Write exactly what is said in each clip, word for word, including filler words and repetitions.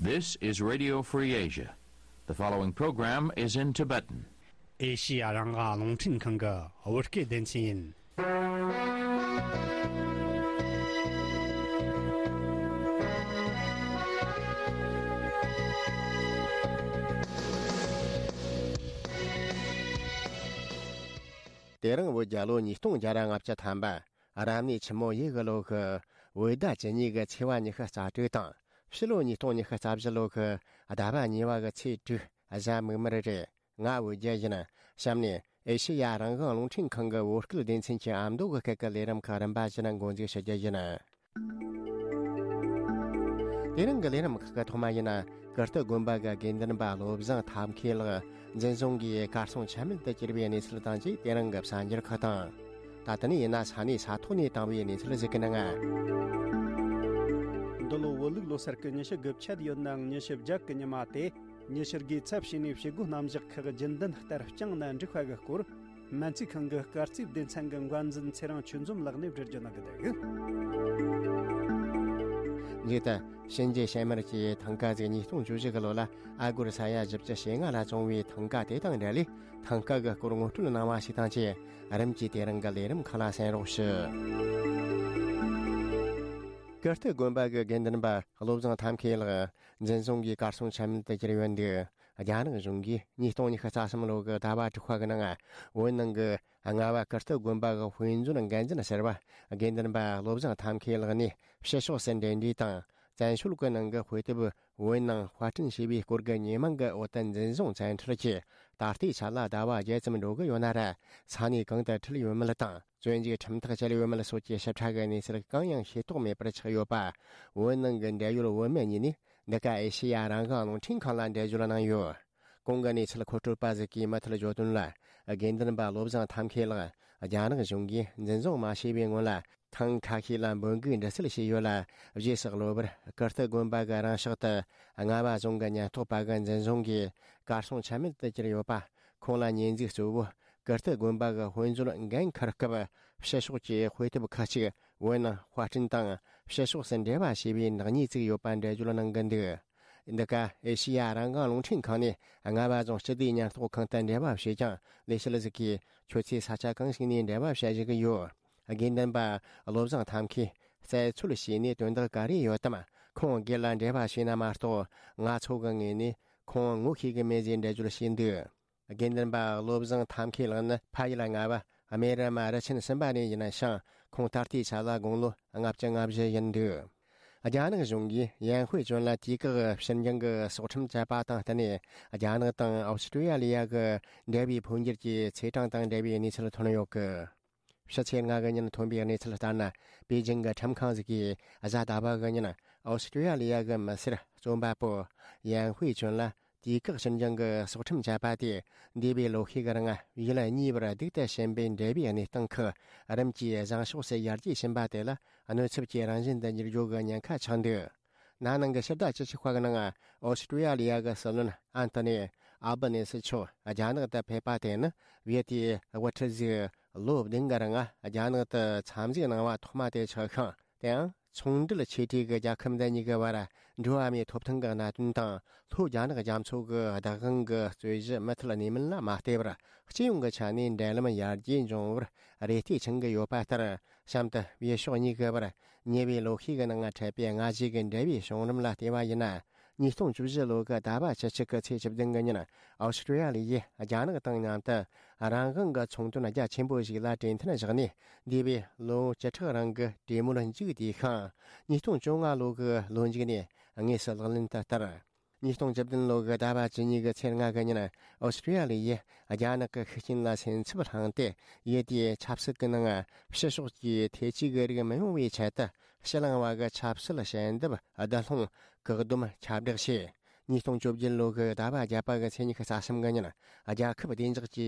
This is Radio Free Asia. The following program is in Tibetan. ཨེ་ཤི་ཡ་རང་དབང་རླུང་འཕྲིན་ཁང་གི་བོད་སྐད་སྡེ་ཚན་ཡིན། དེ་རིང་བོད་རྒྱལ་ལོ་ཉིས་སྟོང་བརྒྱ་ར་ལྔ་བཅུ་ཐམ་པ། རབ་གནས་ཆུ་མོ་ཡོས་གི་ལོ་གི་བོད་ཟླ་བཅུ་གཉིས་གི་ཚེས་པ་ཉི་ཤུ་རྩ་དྲུག་དང་། ཕྱི་ལོ་ཉིས་སྟོང་ཉི་ཤུ་རྩ་བཞི་ལོ་གི་ཟླ་བ་གཉིས་པ་གི་ཚེས་དྲུག། གཟའ་མིག་དམར་རེད། ང་བོད་རྒྱལ་ཡིན། གཤམ་ནས་ཨེ་ཤེ་ཡ་རང་དབང་རླུང་འཕྲིན་ཁང་གི་བོད་སྐད་སྡེ་ཚན་གྱི་ཨ་མདོ་གི་སྐད་ཀྱི་ལས་རིམ་ཁག་རིམ་པ་བཞིན་འགོ་འཛུགས་ཞུ་རྒྱུ་ཡིན། དེ་རིང་གི་ལས་རིམ་ཁག་གི་ཐོག་མ་ཡིན། ཀིརྟི་དགོན་པ་གི་དགེ་འདུན་པ་བློ་བཟང་ཐབས་མཁས་ལགས་འཛིན་བཟུང་གིས་གར་སོང་ཆ་མེད་དུ་གྱུར་བའི་གནས་ཚུལ་དང་བཅས། དེ་རིང་གི་གསར་འགྱུར་ཁག་དང་། ད་ལྟ་ནས་ཡིན་ན་ས་གནས་ས་ཐོག་ནས་བཏང་བའི་གནས་ཚུལ་ཞིག་གི་ནང་། འདི་ལོ་བོད་ལུགས་ལོ་སར་གི་ཉི་ཤུ་དགུ་བཅད་ཡོད་ནའང་ཉི་ཤུ་བརྒྱད་གི་ཉི་མ་སྟེ། ཉི་ཤུ་དགུའི་ཚབ་བྱས་ནས་བྱེད་སྒོ་རྣམ་གཞག་ཁག་རྒྱུན་ལྡན་ལྟར་བསྐྱངས་ནས་འགྲིག་པ་གི་སྐོར། སྨན་རྩིས་ཁང་གི་སྐར་རྩིས་སྡེ་ཚན་གྱི་འགན་འཛིན་ཚེ་རིང་ཆོས་འཛོམས་ལགས་ནས་བསྒྲུབ་རྒྱུ་གནང་གི་འདུག། མཇུག་ཏུ། གཤིན་རྗེ་གཤེད་མར་གྱིས་ཐང་ཀ་ཟིག་ཉིས་སྟོང་བཅུ་བཞི་གི་ལོ་ལ་ཨ་སྒོར་ས་ཡ་བཞི་བཅུ་ཞེ་ལྔ་ལ་བཙོངས་པའི་ཐང་ཀ་དེ་དང་འབྲེལ་ལས། ཐང་ཀ་གི་སྐོར་ངོ་སྤྲོད་གནང་བ་ཞིག་དང་བཅས། རིམ་གྱིས་དེ་རིང་གི་ལས་རིམ་ཁག་ལ་གསན་རོགས་ཞུ། ཀིརྟི་དགོན་པ་གི་དགེ་འདུན་པ་བློ་བཟང་ཐབས་མཁས་ལགས་འཛིན་བཟུང་གིས་གར་སོང་ཆ་མེད་དུ་གྱུར་ཡོད་འདུག། རྒྱ་ནག་གཞུང་གིས་ཉིས་སྟོང་ཉི་ཤུ་རྩ་གསུམ་ལོ་གི་ཟླ་བ་དྲུག་པ་གི་ནང་བོད་ནང་གི་རྔ་བ་ཀིརྟི་དགོན་པ་གི་དཔེ་མཛོད་འགན་འཛིན་ཟུར་པ་དགེ་འདུན་པ་བློ་བཟང་ཐབས་མཁས་ལགས་ནས་ཕྱི་ཕྱོགས་སུ་འབྲེལ་འདྲིས་དང་བཙན་བྱོལ་གྱི་ནང་གི་དཔེ་དེབ་བོད་ནང་དཔར་སྐྲུན་བྱས་པའི་སྐོར་གྱི་ཉེས་མིང་གི་འོག་ཏུ་འཛིན་བཟུང་བཙན་ཁྲིད་ཀྱིས། ད་ལྟའི་ཆ་ལ་ཟླ་བ་བརྒྱད་ཙམ་འགྲོ་གི་ཡོད་ན་ར། ས་གནས་གང་དུ་ཁྲིད་ཡོད་མེད་དང་། བཙོན་འཇུག་ཁྲིམས་ཐག་བཅད་ཡོད་མེད་སོགས་ཀྱི་ཞིབ་ཕྲ་གི་གནས་ཚུལ་གང་ཡང་ཤེས་རྟོགས་མེད་པར་ཆགས་ཡོད་པ། བོད་ནང་གི་འབྲེལ་ཡོད་བོད་མི་གཉིས་ནས། འདི་ག་ཨེ་ཤེ་ཡ་རང་དབང་རླུང་འཕྲིན་ཁང་ལ་འགྲེལ་བརྗོད་གནང་ཡོད། གོང་གི་གནས་ཚུལ་མཁོ་སྤྲོད་པ་ཟིག་གིས་མུ་མཐུད་བརྗོད་དོན་ལ། དགེ་འདུན་པ་བློ་བཟང་ཐབས་མཁས་ལགས་རྒྱ་ནག་གཞུང་གིས་འཛིན་བཟུང་མ་བྱས་པའི་སྔོན་ལ། ཐེངས་ཁ་ཤས་ལ་འབོད་འགུག་འདྲི་སེལ་བྱས་ཡོད་ལ། རྗེས་སུ་གློ་བུར་ཀིརྟི་དགོན་པ་གི་རང་ཕྱོགས་དུ་རྔ་བ་རྫོང་གི་ཉེན་རྟོག་པ་གི་འཛིན་བཟུང་གིས་གར་སོང་ཆ་མེད་དུ་གྱུར་ཡོད་པ། ཁོང་ལ་ཉེས་འཛུགས་གཙོ་བོ་ཀིརྟི་དགོན་པ་གི་དཔེ་མཛོད་འགན་འཁུར་སྐབས། ཕྱི་ཕྱོགས་ཀྱི་དཔེ་དེབ་ཁག་ཅིག་བོད་ནང་དཔར་སྐྲུན་དང་ཕྱི་ཕྱོགས་སུ་འབྲེལ་བ་བྱས་པའི་ནག་ཉེས་བཙུགས་ཡོད་པ་འགྲེལ་བརྗོད་གནང་གི་འདུག། འདི་ག་ཨེ་ཤེ་ཡ་རང་དབང་རླུང་འཕྲིན་ཁང་ནས་རྔ་བ་རྫོང་སྤྱི་བདེའི་ཉེན་རྟོག་ཁང་དུ་འབྲེལ་བ་བྱས་ཀྱང་། ལས་བྱེད་ཟིག་གིས་ཁྱོད་ཚོས་ས་ཆ་གང་ཞིག་ནས་འབྲེལ་བ་བྱ་བཞིན་གི་ཡོད། དགེ་འདུན་པ་བློ་བཟང་ཐབས་མཁས་རྩད་འཚོལ་བྱས་ནས་དོན་དག་ག་རེ་ཡོད་དམ། ཁོང་སྒེར་ལ་འབྲེལ་བ་བྱས་ན་མ་གཏོགས། ང་ཚོ་གི་ངོས་ནས་ཁོང་ངོ་ཤེས་གི་མེད་ཅེས་འགྲེལ་བརྗོད་བྱས་འདུག། དགེ་འདུན་པ་བློ་བཟང་ཐབས་མཁས་ལགས་ནི་ཕ་ཡུལ་རྔ་བ་སྨད་ར་མ་རུ་ཆེན་གསུམ་པ་ནས་ཡིན་ཞིང་། ཁོང་ད་ལྟའི་ཆ་ལ་དགུང་ལོ་ལྔ་བཅུ་ང་བཞི་ཡིན་འདུག། རྒྱ་ནག་གཞུང་གིས་ཡན་ཧུའེ་ཅོན་ལ་དུས་བཀག་ཕྱིར་འགྱངས་ཀྱི་སྲོག་ཁྲིམས་བཅད་པ་དང་བསྟུན་ནས། རྒྱ་ནག་དང་ཨོ་སི་ཀྲི་ཡ་ལི་ཡ་གི་འབྲེལ་བའི་འཕོ་འགྱུར་གྱི་ཚེས་གྲངས་དང་འབྲེལ་བའི་གནས་ཚུལ་ཐོན་ཡོད་གི། ཕྱི་ཚེས་ལྔ་གི་ཉིན་ཐོན་པའི་གནས་ཚུལ་ལྟར་ན། པེ་ཅིང་གི་ཁྲིམས་ཁང་ཟིག་གིས་གཟའ་ཟླ་བ་གི་ཉིན་ཨོ་སི་ཀྲི་ཡ་ལི་ཡ་གི་མི་སེར་རྩོམ་པ་པོ་ཡན་ཧུའེ་ཅོན་ལ་དུས་བཀག་ཕྱིར་འགྱངས་ཀྱི་སྲོག་ཁྲིམས་བཅད་པ་དེ། འདས་པའི་ལོ་ཤས་ཀྱི་རིང་ཡུལ་གཉིས་བར་སྡུག་ཏུ་ཕྱིན་པའི་འབྲེལ་བའི་གནས་སྟངས་ཁག་རིམ་གྱིས་བཟང་ཕྱོགས་སུ་ཡར་རྒྱས་ཕྱིན་པ་དེ་ལ་གནོད་ཚབས་ཀྱི་རང་བཞིན་དུ་འགྱུར་རྒྱུ་གི་ཉེན་ཁ་ཆགས་འདུག། ན་ནིང་གི་ཕྱི་ཟླ་བཅུ་གཅིག་པ་གི་ནང་ཨོ་སི་ཀྲི་ཡ་ལི་ཡ་གི་སྲིད་བློན་ཨན་ཐོ་ནི་ཨལ་བྷ་ནེ་སི་མཆོག་རྒྱ་ནག་ཏུ་ཕེབས་པ་དེ་ནི་བོད་དེའི་དབུ་ཁྲིད་ཟིག་ལོ་བདུན་གི་རིང་རྒྱ་ནག་ཏུ་འཚམས་གཟིགས་གནང་བ་ཐོག་མ་དེ་ཆགས་ཤིང་། དེའང་ཚོང་འབྲེལ་ཆེ་གྲས་ཀྱི་རྒྱལ་ཁབ་འདི་གཉིས་ཀྱི་བར་འགྲོ་བ་མིའི་ཐོབ་ཐང་གི་གནད་དོན་དང་། ལྷོ་རྒྱ་ནག་རྒྱ་མཚོ་གི་བདག་དབང་གི་རྩོད་གཞི་མུ་མཐུད་གནས་མུན་ལ་མ་བལྟས་པར། སྤྱི་ཡོངས་ཀྱི་ཆ་ནས་འབྲེལ་ལམ་ཡར་རྒྱས་འབྱུང་བར་རེ་ལྟོས་འཆང་གི་ཡོད་པ་ལྟར། གཤམ་དུ་བོད་ཕྱོགས་གཉིས་ཀྱི་བར་ཉེ་བའི་ལོ་ཤས་ཀྱི་ནང་འཕྲད་པའི་སྔ་གཞུག་གི་འབྲེལ་བའི་བྱུང་རིམ་ལ་བལྟས་པ་ཡིན་ན། ཉིས་སྟོང་བཅུ་བཞི་ལོ་གི་ཟླ་བ་བཅུ་གཅིག་གི་ཚེས་བཅུ་བདུན་གི་ཉིན་ཨོ་སི་ཀྲི་ཡ་ལི་ཡིས་རྒྱ་ནག་དང་མཉམ་དུ་རང་དབང་གི་ཚོང་དོན་རྒྱ་ཆེན་པོ་ཞིག་ལ་གྲོས་མཐུན་བཞག་ནས། འདས་པའི་ལོ་བཅུ་ཕྲག་རིང་གི་གྲོས་མོལ་མཇུག་བསྡུས་ཤིང་། ཉིས་སྟོང་བཅོ་ལྔ་ལོ་གི་ལོ་མཇུག་ནས་དངོས་སུ་ལག་ལེན་དུ་བསྟར། ཉིས་སྟོང་བཅུ་བདུན་ལོ་གི་ཟླ་བ་བཅུ་གཉིས་གི་ཚེས་ལྔ་གི་ཉིན་ཨོ་སི་ཀྲི་ཡ་ལི་ཡིས་རྒྱ་ནག་གི་ཤུགས་རྐྱེན་ལ་སེམས་འཚབ་བསླངས་ཏེ། ཡུལ་དེའི་ཆབ་སྲིད་ཀྱི་ནང་ཕྱི་ཕྱོགས་ཀྱི་ཐེ་ཇུས་ཀྱི་རིགས་མི་ཡོང་བའི་ཆེད་དུ། ཕྱི་གླིང་བ་གི་ཆབ་སྲིད་ཞལ་འདེབས་བསྡུ་སློང་བཀག་སྡོམ་ཁྱབ་བསྒྲགས་བྱས། ཉིས་སྟོང་བཅོ་བརྒྱད་ལོ་གི་ཟླ་བ་བརྒྱད་པ་གི་ཚེས་ཉི་ཤུ་རྩ་གསུམ་གི་ཉིན། རྒྱལ་ཁབ་བདེ་འཇགས་ཀྱི་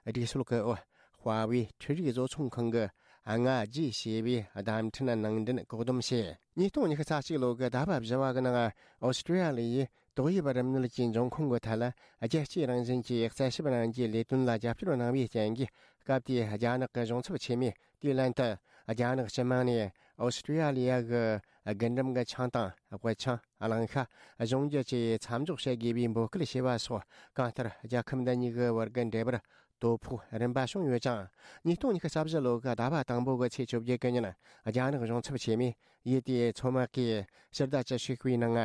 སྒྲིག་སྲོལ་གྱི་འོག་ཧྭ་ཝེ་འཕྲུལ་རིག་བཟོ་ཚོང་ཁང་གི་སྔ་རྗེས་ཞེས་པའི་བརྡ་འཕྲིན་ནང་འདྲེན་བཀག་སྡོམ་བྱས། ཉིས་སྟོང་ཉི་ཤུ་རྩ་གཅིག་ལོ་གི་ཟླ་བ་བཞི་བ་གི་ནང་ཨོ་སི་ཀྲི་ཡ་ལི་ཡིས་ཏོག་དབྱིབས་རིམས་ནད་ཀྱི་འབྱུང་ཁུངས་ཀྱི་ཐད་ལ་རྒྱལ་སྤྱིའི་རང་བཞིན་གྱི་རྩད་ཞིབ་གནང་རྒྱུའི་ལས་དོན་ལ་རྒྱབ་སྐྱོར་གནང་བའི་རྐྱེན་གྱིས། སྐབས་དེའི་རྒྱ་ནག་གི་གཞུང་ཚབ་ཆེན་མོས་དེའི་ལན་དུ། རྒྱ་ནག་སྤྱི་དམངས་ནས་ཨོ་སི་ཀྲི་ཡ་ལི་ཡ་གི་རྒུན་འབྲུམ་གྱི་ཆང་དང་དབུལ་ཆང་། གླང་ཤ། གཞུང་རྒྱུ་བཅས་མཚམས་འཇོག་བྱེད་དགོས་པའི་འབོད་སྐུལ་བྱས་པ་སོགས། གང་ལྟར་རྒྱལ་ཁབ་འདི་གཉིས་ཀྱི་བར་གྱི་འབྲེལ་བར་དོ་ཕོག་རིམ་པ་བྱུང་ཡོད་ཅིང་། ཉིས་སྟོང་ཉི་ཤུ་རྩ་བཞི་ལོ་གི་ཟླ་བ་དང་པོ་གི་ཚེས་བཅོ་བརྒྱད་གི་ཉིན། རྒྱ་ནག་གཞུང་ཚབ་ཆེན་མོས་ཡུལ་དེའི་མཚོ་དམག་གིས་ཕྱི་ཟླ་བཅུ་དྲུག་པའི་ནང་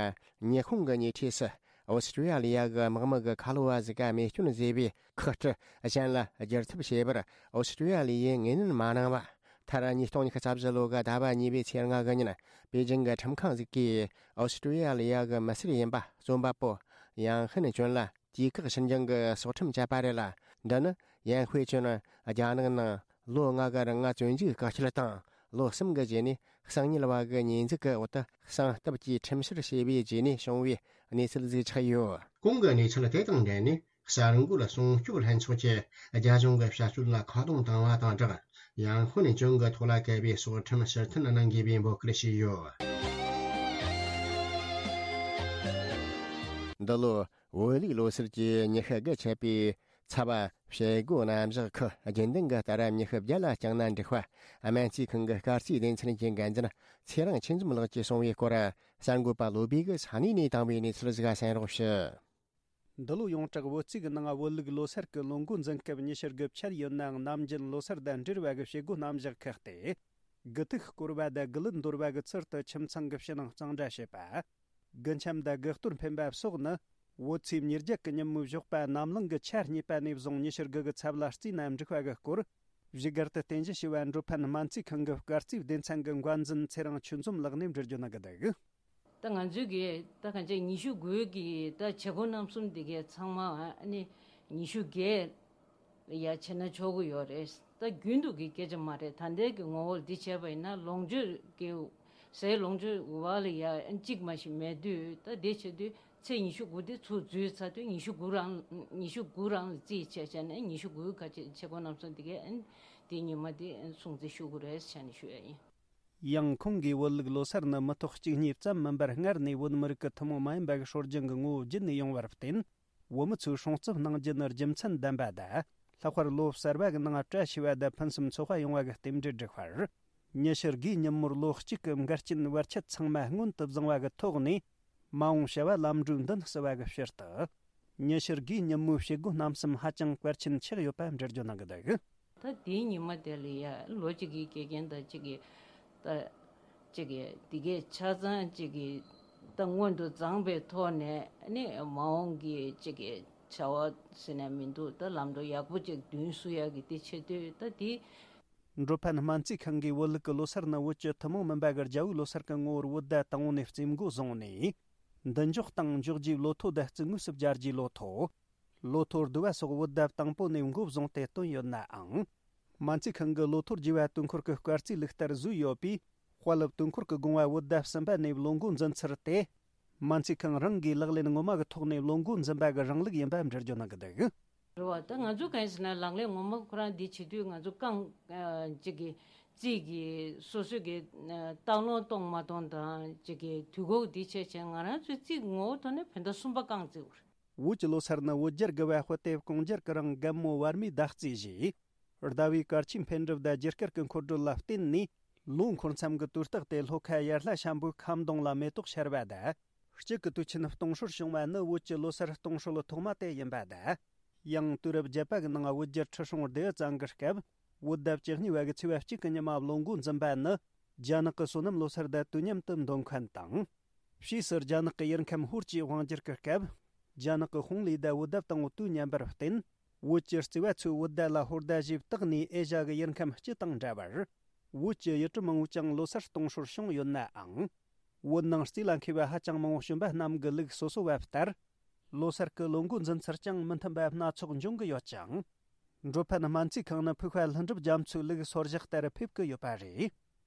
ཉི་ཤུ་གི་ཉེ་འཁྲིས་སུ་ཨོ་སི་ཀྲི་ཡ་ལི་ཡ་གི་དམག་མི་གི་ཁ་ལོ་བ་ཟིག་ག་རྨས་སྐྱོན་བཟོས་པའི་ཁག་དཀྲི་གཞན་ལ་བསྒྱུར་ཐབས་བྱེད་པར་ཨོ་སི་ཀྲི་ཡ་ལི་ཡས་ངོས་ལེན་མ་གནང་བ། མཐར་ཉིས་སྟོང་ཉི་ཤུ་རྩ་བཞི་ལོ་གི་ཟླ་བ་གཉིས་པའི་ཚེས་ལྔ་གི་ཉིན། པེ་ཅིང་གི་ཁྲིམས་ཁང་ཟིག་གིས་ཨོ་སི་ཀྲི་ཡ་ལི་ཡ་གི་མི་སེར་ཡིན་པ་རྩོམ་པ་པོ་ཡང་ཧུན་ཅོན་ལ་དུས་བཀག་ཕྱིར་འགྱངས་ཀྱི་སྲོག་ཁྲིམས་བཅད་པ་རེད་ལ། འདི་ནི་ཡང་ཧུའེ་ཅོན་རྒྱ་ནག་ནང་ལོ་ལྔ་གི་རིང་བཙོན་འཇུག་བཀག་སྐྱིལ་དང་། ལོ་གསུམ་གྱི་རྗེས་ནས་གསང་ཉུལ་བ་གི་ཉེས་འཛུགས་ཀྱི་འོག་ཏུ་གསང་སྟབས་ཀྱིས་ཁྲིམས་བཤེར་བྱས་པའི་རྗེས་ནས་བྱུང་བའི་གནས་ཚུལ་ཟིག་ཆགས་ཡོད། གོང་གི་གནས་ཚུལ་དེ་དང་འབྲེལ་ནས། གསར་འགོད་སྲུང་སྐྱོབ་ལྷན་ཚོགས་ཀྱིས་རྒྱ་གཞུང་གི་བྱ་སྤྱོད་ལ་ཁ་རྡུང་བཏང་བ་དང་སྦྲགས། ཡང་ཧུན་ཅོན་གྱི་ཐོག་ལ་གལ་བའི་སྲོག་ཁྲིམས་ཕྱིར་འཐེན་གནང་དགོས་པའི་འབོད་སྐུལ་བྱས་ཡོད། འདི་ལོ་བོད་ལུགས་ལོ་སར་གྱི་ཉི་ཤུ་དགུ་ཆད་པའི་ཚབ་བྱེད་སྒོ་རྣམ་གཞག་ཁུལ་རྒྱུན་ལྡན་གྱི་ལྟ་ར་ཉི་ཤུ་བརྒྱ་ལ་བསྐྱངས་ན་འགྲིག་པ། སྨན་རྩིས་ཁང་གི་སྐར་རྩིས་སྡེ་ཚན་གྱི་འགན་འཛིན་ཚེ་རིང་ཆོས་འཛོམས་ལགས་ཀྱིས་གསུངས་པའི་སྐོར། གསར་འགོད་པ་བློ་བྷེ་གིས་ས་གནས་ནས་བཏང་བའི་གནས་ཚུལ་ཟིག་གསན་རོགས་ཞུ། འདི་ལོ་ཡོངས་གྲགས་བོད་རྩིས་ཀྱི་ནང་བོད་ལུགས་ལོ་སར་གྱི་ལོ་འགོ་འཛིན་སྐབས་ཉི་ཤུ་དགུ་ཆད་ཡོད་ནའང་། ནམ་རྒྱུན་ལོ་སར་དང་འབྲེལ་བ་གི་བྱེད་སྒོ་རྣམ་གཞག་ཁག་སྟེ། དགུ་ཐུག་བསྐོར་བ་དང་དགུ་ལུད་འདོར་བ་གི་ཚུལ་དུ་ཁྱིམ་ཚང་གི་ཕྱི་ནང་གཙང་སྦྲ་བྱེད་པ། དགུ་འཆམ་དང་དགུ་གཏོར་འཕེན་པ་སོགས་ནི། བོད་ཚེས་ཉེར་བརྒྱད་ཀྱི་ཉིན་མོའི་ཞོགས་པ་ནམ་ལངས་ཀྱི་ཆ་གཉིས་པ་ནས་བཟུང་ཉི་ཤུ་དགུ་གི་ཚབ་ལ་བརྩིས་ན་འགྲིག་པ་གི་སྐོར། བཞུགས་སྒར་དུ་རྟེན་གཞི་བྱས་པའི་འགྲོ་ཕན་སྨན་རྩིས་ཁང་གི་སྐར་རྩིས་སྡེ་ཚན་གྱི་འགན་འཛིན་ཚེ་རིང་ཆོས་འཛོམས་ལགས་ནས་འགྲེལ་བརྗོད་གནང་གི་འདུག། ད་ང་ཚོའི་གི་ད་གང་ཅི་ཉི་ཤུ་དགུའི་གི་ད་བྱེད་སྒོ་རྣམ་གསུམ་འདི་གའི་ཚང་མ་ཨ་ནི་ཉི་ཤུ་བརྒྱད་ཡ་བྱས་ན་ཆོག་གི་ཡོད་རེད། ད་རྒྱུན་དུ་གི་སྐད་ཆ་མ་རེད། ད་ལྟའི་གི་ངོ་བོར་འདི་བྱས་པ་ཡིན་ན་ལོངས་སྤྱོད་ཀྱི་ཟས་ལོངས་སྤྱོད་བ་ལ་ཡ་གཅིག་མ་ཞིག་མེད་དུས། ད་དེ་བྱེད་དུས་ཚེས་ཉི་ཤུ་དགུ་དེ་ཚུར་འཛུལ་ཚར་དུས་ཉི་ཤུ་དགུ་རང་ཉི་ཤུ་དགུ་རང་ལ་རྩིས་བྱས་བྱས་ནས་ཉི་ཤུ་དགུའི་ཁ་ཆེ་བྱེད་སྒོ་རྣམ་གསུམ་འདི་གའི་དེ་ཉི་མ་དེ་སྲུང་བརྩི་ཞུ་དགོས་རེད་བྱས་ནས་ཞུ་ཡ་ཡིན། ཡང་ཁོང་གིས་བོད་ལུགས་ལོ་སར་ནི་མི་ཐོག་གཅིག་གཉིས་ཙམ་མིན་པར་སྔར་ནས་བོད་མི་རིགས་ཀྱི་ཐུན་མོང་མ་ཡིན་པ་གི་སྲོལ་རྒྱུན་གྱི་ངོ་བོ་བརྒྱུད་ནས་ཡོང་བར་བརྟེན། བོད་མི་ཚོས་སྲུང་བརྩི་གནང་རྒྱུ་ནི་རྒྱུ་མཚན་ལྡན་པ་དང་། ལྷག་པར་ལོ་གསར་བ་གི་ནང་བཀྲ་ཤིས་པ་དང་ཕུན་སུམ་ཚོགས་པ་ཡོང་བ་གི་རྟེན་འབྲེལ་བསྒྲིགས་པར། ཉི་ཤུ་དགུའི་ཉིན་མོར་ལོ་གཅིག་གི་འགལ་རྐྱེན་བར་ཆད་ཚང་མ་སྔོན་དུ་བཟུང་བ་གི་ཐོག་ནས། མ་འོངས་བྱ་བ་ལམ་འགྲོའི་མདུན་བསུ་བ་གི་ཕྱིར་དུ། ཉི་ཤུ་དགུའི་ཉིན་མོའི་བྱེད་སྒོ་རྣམ་གསུམ་ཧ་ཅང་གལ་ཆེན་ཆགས་ཡོད་པ་འགྲེལ་བརྗོད་གནང་གི་འདུག། ད་དེའི་ཉི་མ་དེ་ལ་ཡ་ལོ་གཅིག་གི་དགེ་རྒན་དང་གཅིག་གི་ད་གཅིག་གི་དེ་གའི་ཆ་ཚང་གཅིག་གི་ད་སྔོན་དུ་བརྫངས་པའི་ཐོག་ནས་ནི་མ་འོངས་ཀྱི་གཅིག་གི་བྱ་བ་ཟེར་ན་མི་འདུག། ད་ལམ་འགྲོ་ཡག་པོ་གཅིག་མདུན་བསུ་ཡག་གི་དེ་བྱེད་དུས་ད་དེ། འགྲོ་ཕན་སྨན་རྩིས་ཁང་གིས་བོད་ལུགས་ཀྱི་ལོ་སར་ནི་བོད་ཀྱི་ཐུན་མོང་མིན་པ་གི་རྒྱལ་པོའི་ལོ་སར་གྱི་ངོ་བོར་བོད་ཟླ་དང་པོ་ནས་རྩིས་འགོ་བཟུང་ནས། མདུན་འཇོག་དང་འཇོག་རྒྱུའི་ལོ་ཐོ་དང་རྩིས་དངོས་སུ་སྦྱར་རྒྱུའི་ལོ་ཐོ། ལོ་ཐོ་བསྡུ་བ་སོགས་བོད་ཟླ་དང་པོ་ནས་འགོ་བཟུང་སྟེ་བཏོན་ཡོད་ནའང་། སྨན་རྩིས་ཁང་གི་ལོ་ཐོ་བསྒྱུར་བ་དུས་འཁོར་གྱི་སྐར་རྩིས་ལུགས་ལྟར་བཟོས་ཡོད་པས། དཔལ་སློབ་དུས་འཁོར་གྱི་དགོངས་པ་བོད་ཟླ་གསུམ་པ་ནས་ལོ་འགོ་འཛིན་ཚུལ་དེ། སྨན་རྩིས་ཁང་རང་གིས་ལག་ལེན་ངོ་མ་གི་ཐོག་ནས་ལོ་འགོ་འཛིན་པ་གི་རིང་ལུགས་ཡིན་པ་འགྲེལ་བརྗོད་གནང་གི་འདུག། རེད་བ། ད་ང་ཚོ་གང་ཡིན་ཟེར་ན་ལག་ལེན་ངོ་མ་ཁོ་རང་འདི་བྱེད་དུས་ང་ཚོ་རྐང་ཨ་གཅིག་གི་རྩིས་ཀྱི་སོ་སོ་གི་ཨ་སྟག་ལུང་གཏོང་མ་གཏོང་དང་གཅིག་གི་དུས་འགོ་འདི་བྱས་བྱས་ང་རང་ཚོའི་རྩིས་ངོ་བོ་ཐོག་ནས་བོད་ཟླ་གསུམ་པ་རྐང་བརྩིས་པ་རེད། བོད་ཀྱི་ལོ་སར་ནི་བོད་རྒྱལ་དགུ་པ་དཔལ་དེབ་ཀོང་རྒྱལ་གྱི་རིང་རྒན་མོ་བར་མའི་ཟླ་རྩིས་བཞེས། ཟླ་བའི་སྐར་ཆའི་འཕེལ་འགྲིབ་དང་རྒྱུ་སྐར་གྱི་འཁོར་སྒྲོལ་ལ་བརྟེན་ནས། ལོ་འཁོར་མཚམས་ཀྱི་དུས་རྟགས་དེ་ལྷོ་ཁ་ཡར་ལྷ་ཤམ་བུའི་ཁ་མདུང་ལ་མེ་ཏོག་ཤར་བ་དང་། དཔྱིད་ཀྱི་དུས་ཆེན་སྟོང་སྲོལ་བྱུང་བ་ནི་བོད་ཀྱི་ལོ་སར་སྟོང་སྲོལ་ཐོག་མ་དེ་ཡིན་པ་དང་། ཡང་དུས་རབས་བརྒྱད་པ་གི་ནང་བོད་རྒྱལ་ཁྲི་སྲོང་ལྡེའུ་བཙན་གྱི་སྐབས། བོད་ཟླ་བཅུ་གཉིས་པ་གི་ཚེས་པ་གཅིག་གི་ཉི་མ་ལོ་འགོ་འཛིན་པ་ནི། རྒྱ་ནག་གི་སོ་ནམ་ལོ་སར་དང་དུས་མཉམ་དུ་འདོན་མཁན་དང་། ཕྱིས་སུ་རྒྱ་ནག་གི་ཡུལ་ཁམས་ཧུར་གྱིས་དབང་བསྒྱུར་གྱི་སྐབས། རྒྱ་ནག་གི་ཧུང་ལི་དང་བོད་ཟླ་དང་པོ་དུས་མཉམ་པར་བརྟེན། བོད་ཀྱི་རྩིས་པ་ཚོས་བོད་ཟླ་ལ་ཧོར་ཟླ་ཞེས་བཏགས་ནས་ཨེ་ཤ་གི་ཡུལ་ཁམས་སྤྱི་དང་འདྲ་བར། བོད་ཀྱི་ཡུལ་གྲུ་མང་བོས་ཀྱང་ལོ་སར་གཏོང་སྲོལ་བྱུང་ཡོད་ནའང་། བོད་ནང་རྩིས་ལ་མཁས་པ་ཧ་ཅང་མང་བོ་བྱོན་པ་རྣམས་ཀྱི་ལུགས་སོ་སོ་བ་ལྟར། ལོ་སར་གྱི་ལོ་འགོ་འཛིན་ཚུལ་ཀྱང་མི་མཐུན་པ་སྣ་ཚོགས་འབྱུང་གི་ཡོད་ཅིང་། འགྲོ་ཕན་སྨན་རྩིས་ཁང་ནི་ཕུགས་པ་ལྷུན་གྲུབ་རྒྱ་མཚོའི་ལུགས་སོར་བཞག་ལྟར་ཕེབས་ཀྱི་ཡོད་པ་རེད།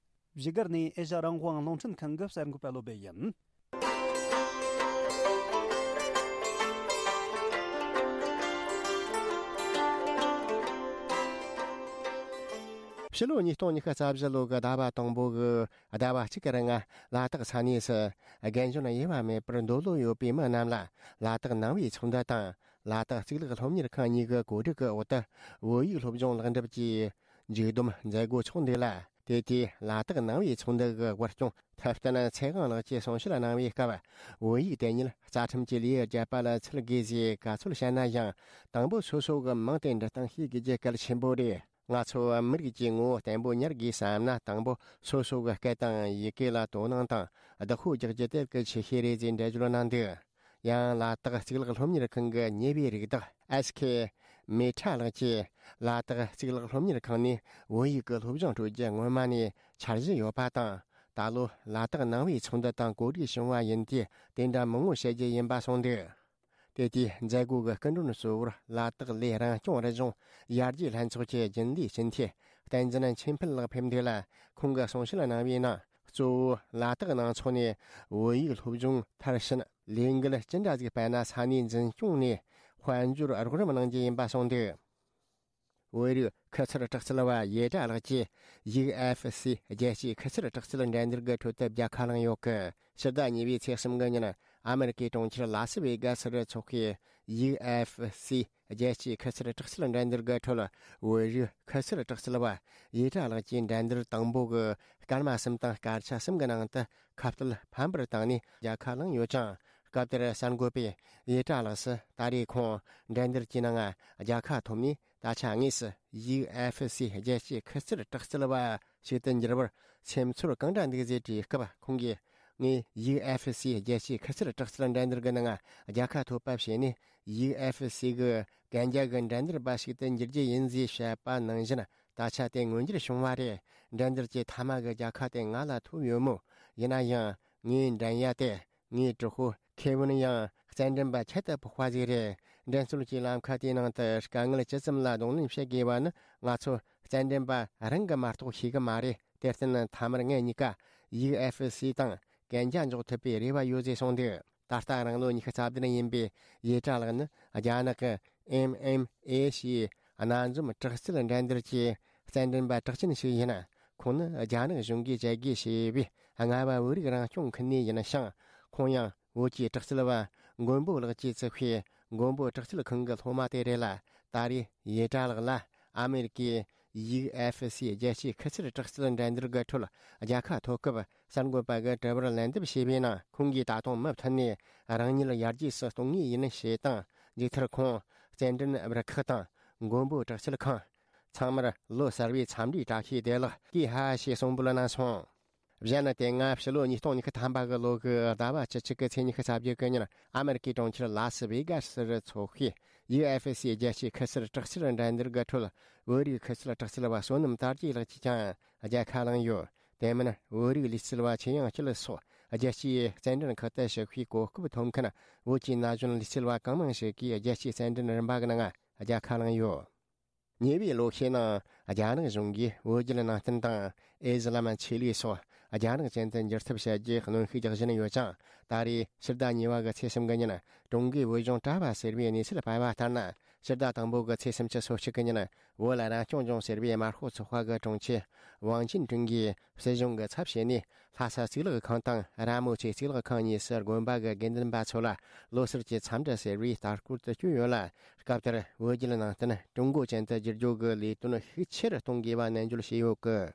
བཞུགས་སྒར་ནས་ཨེ་ཤ་རང་དབང་རླུང་འཕྲིན་ཁང་གི་གསར་འགོད་པ་བློ་བྷེ་ཡིན། ཕྱི་ལོ་ཉིས་སྟོང་ཉི་ཤུ་རྩ་བཞི་ལོ་གི་ཟླ་བ་དང་པོ་གི་ཟླ་བ་གཅིག་གི་རིང་ལ་དྭགས་ས་གནས་སུ་རྒན་གཞོན་དབྱེ་བ་མེད་པར་འདོད་བློ་ཡོད་པའི་མི་རྣམས་ལ་ལ་དྭགས་ནང་པའི་ཚོགས་འདུ་དང་ལ་དྭགས་གཙུག་ལག་སློབ་གཉེར་ཁང་གཉིས་ཀྱི་གོ་སྒྲིག་གི་འོག་ཏུ་བོད་ཡིག་སློབ་སྦྱོང་ལེགས་འགྲུབ་ཀྱི་མཇུག་བསྡོམས་མཛད་སྒོ་འཚོགས་འདུག་ལ། དེ་དུས་ལ་དྭགས་ནང་པའི་ཚོགས་འདུ་གི་དབུ་སྐྱོང་ཐུབ་བསྟན་ཚེ་དབང་ལགས་ཀྱིས་གསུང་བཤད་གནང་བའི་སྐབས། བོད་ཡིག་དེ་ཉིད་རྩ་ཁྲིམས་ཀྱི་ལེའུར་བརྒྱབ་པ་ལ་ཚུད་དགོས་ཞེས་བཀའ་འཚོལ་བྱས་ན་ཡང་། དང་པོ་སོ་སོ་གི་མིང་དེ་འབྲི་སྟངས་ཤེས་དགོས་རྒྱུ་གལ་ཆེན་པོ་རེད། ང་ཚོ་མི་རིགས་ཀྱི་ངོ་བོ་བརྟན་པོ་གཉེར་དགོས་བསམ་ན། དང་པོ་སོ་སོ་གི་སྐད་དང་ཡི་གེ་ལ་དོ་སྣང་དང་བདག་པོ་རྒྱག་རྒྱུ་དེ་གལ་ཆེ་ཤོས་རེད་ཅེས་འགྲེལ་བརྗོད་གནང་འདུག། ཡང་ལ་དྭགས་གཙུག་ལག་སློབ་གཉེར་ཁང་གི་གཉེར་བའི་རིགས་བདག་ཨེས་ཁེ་མེ་ཁྲ་ལགས་ཀྱིས། ལ་དྭགས་གཙུག་ལག་སློབ་གཉེར་ཁང་ནས་བོད་ཡིག་གི་སློབ་སྦྱོང་སྤྲོད་རྒྱུ་སྔོན་མ་ནས་འཆར་གཞི་ཡོད་པ་དང་། ད་ལོ་ལ་དྭགས་ནང་པའི་ཚོགས་འདུ་དང་གོ་སྒྲིག་བྱུང་བ་ཡིན་དུས། དེ་འདྲ་མང་བོ་བཤད་རྒྱུ་ཡིན་པ་གསུངས་འདུག། དེ་དུས་མཛད་སྒོ་གི་སྐུ་མགྲོན་གཙོ་བོར་ལ་དྭགས་ལས་རང་སྐྱོང་རི་ལྗོངས་ཡར་རྒྱས་ལྷན་ཚོགས་ཀྱི་རྒྱུན་ལས་སྤྱི་འཐུས་བསྟན་འཛིན་ཆོས་འཕེལ་ལགས་ཕེབས་འདུག་ལ། ཁོང་གིས་གསུང་བཤད་གནང་བའི་ནང་། གཙོ་བོ་ལ་དྭགས་ནང་ཚོགས་ནས་བོད་ཡིག་སློབ་སྦྱོང་མཐར་ཕྱིན་ལས་འགུལ་ཅི་འདྲ་ཟིག་སྤེལ་ན། ས་གནས་འཛིན་སྐྱོང་ནས་དཔལ་འབྱོར་རོགས་རམ་གནང་རྒྱུ་ཡིན་པ་གསུངས་འདུག། བོད་རིགས་ཁུ་ཚུར་དྲག་རྩལ་བ་ཡེ་ཀྲ་ལགས་ཀྱིས་ཡུ་ཨེཕ་སི་རྒྱལ་སྤྱིའི་ཁུ་ཚུར་དྲག་རྩལ་འགྲན་བསྡུར་གྱི་ཁྲོད་དུ་རྒྱལ་ཁ་བླངས་ཡོད་སྐད། ཕྱི་ཟླ་གཉིས་པའི་ཚེས་གསུམ་གྱི་ཉིན་ཨ་མེ་རི་ཀའི་གྲོང་ཁྱེར་ལ་སི་ཝེ་གྷ་སི་རུ་འཚོགས་པའི་ཡུ་ཨེཕ་སི་རྒྱལ་སྤྱིའི་ཁུ་ཚུར་དྲག་རྩལ་འགྲན་བསྡུར་གྱི་ཁྲོད། བོད་རིགས་ཁུ་ཚུར་དྲག་རྩལ་བ་ཡེ་ཀྲ་ལགས་ཀྱིས་འགྲན་བསྡུར་དང་པོ་གི་སྐར་མ་གསུམ་དང་སྐར་ཆ་གསུམ་གྱི་ནང་དུ་ཁ་གཏད་ཕམ་པར་བཏང་ནས་རྒྱལ་ཁ་བླངས་ཡོད་ཅིང་། སྐབས་དེར་གསར་འགོད་པས་ཡེ་ཀྲ་ལགས་སུ། ད་རེས་ཁོང་འགྲན་བསྡུར་གྱི་ནང་རྒྱལ་ཁ་ཐོབ་ནས། ད་ཆ་དངོས་སུ་ཡུ་ཨེཕ་སི་རྒྱལ་སྤྱིའི་ཁུ་ཚུར་དྲག་རྩལ་བ་ཞིག་ཏུ་འགྱུར་བར་སེམས་ཚོར་གང་འདྲ་འདུག་ཟེར་དྲིས་སྐབས། ཁོང་གིས། ངས་ཡུ་ཨེཕ་སི་རྒྱལ་སྤྱིའི་ཁུ་ཚུར་དྲག་རྩལ་འགྲན་བསྡུར་གྱི་ནང་རྒྱལ་ཁ་ཐོབ་པ་བྱས་ནས། ཡུ་ཨེཕ་སི་གི་གན་རྒྱ་གི་འགྲན་བསྡུར་པ་ཞིག་ཏུ་འགྱུར་རྒྱུ་ཡིན་ཟེར་བཤད་པ་ནང་བཞིན། ད་ཆ་དེ་མངོན་འགྱུར་བྱུང་བ་རེད། འགྲན་བསྡུར་གྱི་མཐའ་མ་གི་རྒྱལ་ཁ་དེ་ང་ལ་ཐོབ་ཡོད་མོད། ཡིན་ན་ཡང་ངའི་འགྲན་ཡ་དེ། ངའི་གྲོགས་པོ་ཁེ་ཝིན་ཡང་རྩེད་འགྲན་པ་ཁྱད་དུ་འཕགས་པ་ཟིག་རེད། འགྲན་རྩོད་ཀྱི་ལམ་ཁ་དེའི་ནང་དུ་དཀའ་ངལ་ཇི་ཙམ་ལ་གདོང་ལེན་བྱེད་དགོས་པ་ནི། ང་ཚོ་རྩེད་འགྲན་པ་རང་གིས་མ་གཏོགས་ཤེས་ཀྱི་མ་རེད། དེར་བརྟེན་མཐའ་མར་ངེད་གཉིས་ཀ་ཡུ་ཨེཕ་སི་དང་གན་རྒྱ་འཇོག་ཐུབ་པའི་རེ་བ་ཡོད་ཟེར་གསུངས་འདུག། ད་ལྟ་རང་ལོ་ཉི་ཤུ་རྩ་བདུན་ཡིན་པའི་ཡེ་ཀྲ་ལགས་ནི། རྒྱ་ནག་གི་ཨེམ་ཨེམ་ཨེ་ཞེས་སྣ་འཛོམས་དྲག་རྩལ་འགྲན་བསྡུར་གྱི་རྩེད་འགྲན་པ་གྲགས་ཅན་ཞིག་ཡིན། ཁོང་ནི་རྒྱ་ནག་གཞུང་གིས་བཅད་རྒོལ་བྱས་པའི་རྔ་བ་བོད་རིགས་རང་སྐྱོང་ཁུལ་ནས་ཡིན་ཞིང་། ཁོང་ཡང་བོད་ཀྱི་དྲག་རྩལ་བ་མགོན་པོ་ལགས་ཀྱིས་བཙུགས་པའི་མགོན་པོ་དྲག་རྩལ་ཁང་གི་སློབ་མ་དེ་རེད་ལ། ད་རེས་ཡེ་ཀྲ་ལགས་ལ་ཨ་མེ་རི་ཀའི་ཡུ་ཨེཕ་སི་རྒྱལ་སྤྱིའི་ཁུ་ཚུར་དྲག་རྩལ་འགྲན་བསྡུར་གྱི་ཁྲོད་རྒྱལ་ཁ་ཐོབ་སྐབས། གསར་འགོད་པ་གིས་དྲི་བར་ལན་འདེབས་བྱས་པའི་ནང་། ཁོང་གིས་ད་དུང་མུ་མཐུད་ནས་རང་ཉིད་ཡར་རྒྱས་སུ་གཏོང་ངེས་ཡིན་ཞེས་དང་། མཇུག་མཐར་ཁོང་རྩེད་འགྲན་རུ་ཁག་དང་མགོན་པོ་དྲག་རྩལ་ཁང་། ཚང་མར་ལོ་གསར་བའི་འཚམས་འདྲིའི་བཀྲ་ཤིས་བདེ་ལེགས། ཀི་ཧ་ཞེས་གསུངས་འབོད་གནང་སོང་། གཞན་ནི། དེ་སྔ་ཕྱི་ལོ་ཉིས་སྟོང་ཉི་ཤུ་ཐམ་པ་གི་ལོ་གི་ཟླ་བ་བཅུ་གཅིག་གི་ཚེས་ཉི་ཤུ་རྩ་བརྒྱད་གི་ཉིན། ཨ་མེ་རི་ཀའི་གྲོང་ཁྱེར་ལ་སི་ཝེ་གྷ་སི་རུ་འཚོགས་པའི་ཡུ་ཨེཕ་སི་རྒྱལ་སྤྱིའི་ཁུ་ཚུར་དྲག་རྩལ་འགྲན་བསྡུར་གྱི་ཁྲོད། བོད་རིགས་ཁུ་ཚུར་དྲག་རྩལ་བ་བསོད་ནམས་དར་རྒྱས་ལགས་ཀྱིས་ཀྱང་རྒྱལ་ཁ་བླངས་ཡོད། དེ་མིན། བོད་རིགས་ལུས་རྩལ་བ་ཆོས་དབྱངས་སྐྱིད་སོགས་རྒྱལ་སྤྱིའི་རྩེད་འགྲན་ཁག་ཏུ་ཞུགས་པའི་གོ་སྐབས་ཐོབ་མཁན་བོད་ཀྱི་ན་གཞོན་ལུས་རྩལ་བ་གང་མང་ཞིག་གིས་རྒྱལ་སྤྱིའི་རྩེད་འགྲན་རིམ་པ་གི་ནང་རྒྱལ་ཁ་བླངས་ཡོད། ཉེ་བའི་ལོ་ཤས་ནང་རྒྱ་ནག་གཞུང་གིས་བོད་བརྒྱུད་ནང་བསྟན་དང་ཨི་ཟི་ལམ་ཆོས་ལུགས་སོགས་རྒྱ་ནག་ཅན་དུ་འགྱུར་ཐབས་བྱ་རྒྱུའི་གནོན་ཤུགས་རྒྱག་བཞིན་ཡོད་ཅིང་། ད་རེས་ཕྱི་ཟླ་གཉིས་པ་གི་ཚེས་གསུམ་གི་ཉིན་ཀྲུང་གོའི་བོད་ལྗོངས་གྲྭ་པ་ཟེར་བའི་གནས་ཚུལ་སྤེལ་བ་ལྟར་ན། ཕྱི་ཟླ་དང་པོ་གི་ཚེས་སུམ་ཅུ་སོ་གཅིག་གི་ཉིན་བོད་ལ་རང་སྐྱོང་ལྗོངས་ཟེར་བའི་དམར་ཤོག་ཚོགས་པ་གི་དྲུང་ཆེ་ཝང་ཅིན་ཀྲུང་གིས་སྲིད་གཞུང་གི་ཚབ་བྱས་ནས། ལྷ་ས་གཙུག་ལག་ཁང་དང་ར་མོ་ཆེ་གཙུག་ལག་ཁང་གཉིས་སུ་དགོན་པ་གི་དགེ་འདུན་པ་ཚོ་ལ་ལོ་གསར་གྱི་འཚམས་འདྲི་ཟེར་བའི་ལྟ་སྐོར་དུ་བསྐྱོད་ཡོད་ལ། སྐབས་དེར་བོད་བརྒྱུད་ནང་བསྟན་ཀྲུང་གོ་ཅན་དུ་བསྒྱུར་རྒྱུ་གི་ལས་དོན་ཤུགས་ཆེ་རུ་གཏོང་དགོས་པ་ནན་བརྗོད་བྱས་ཡོད་སྐད།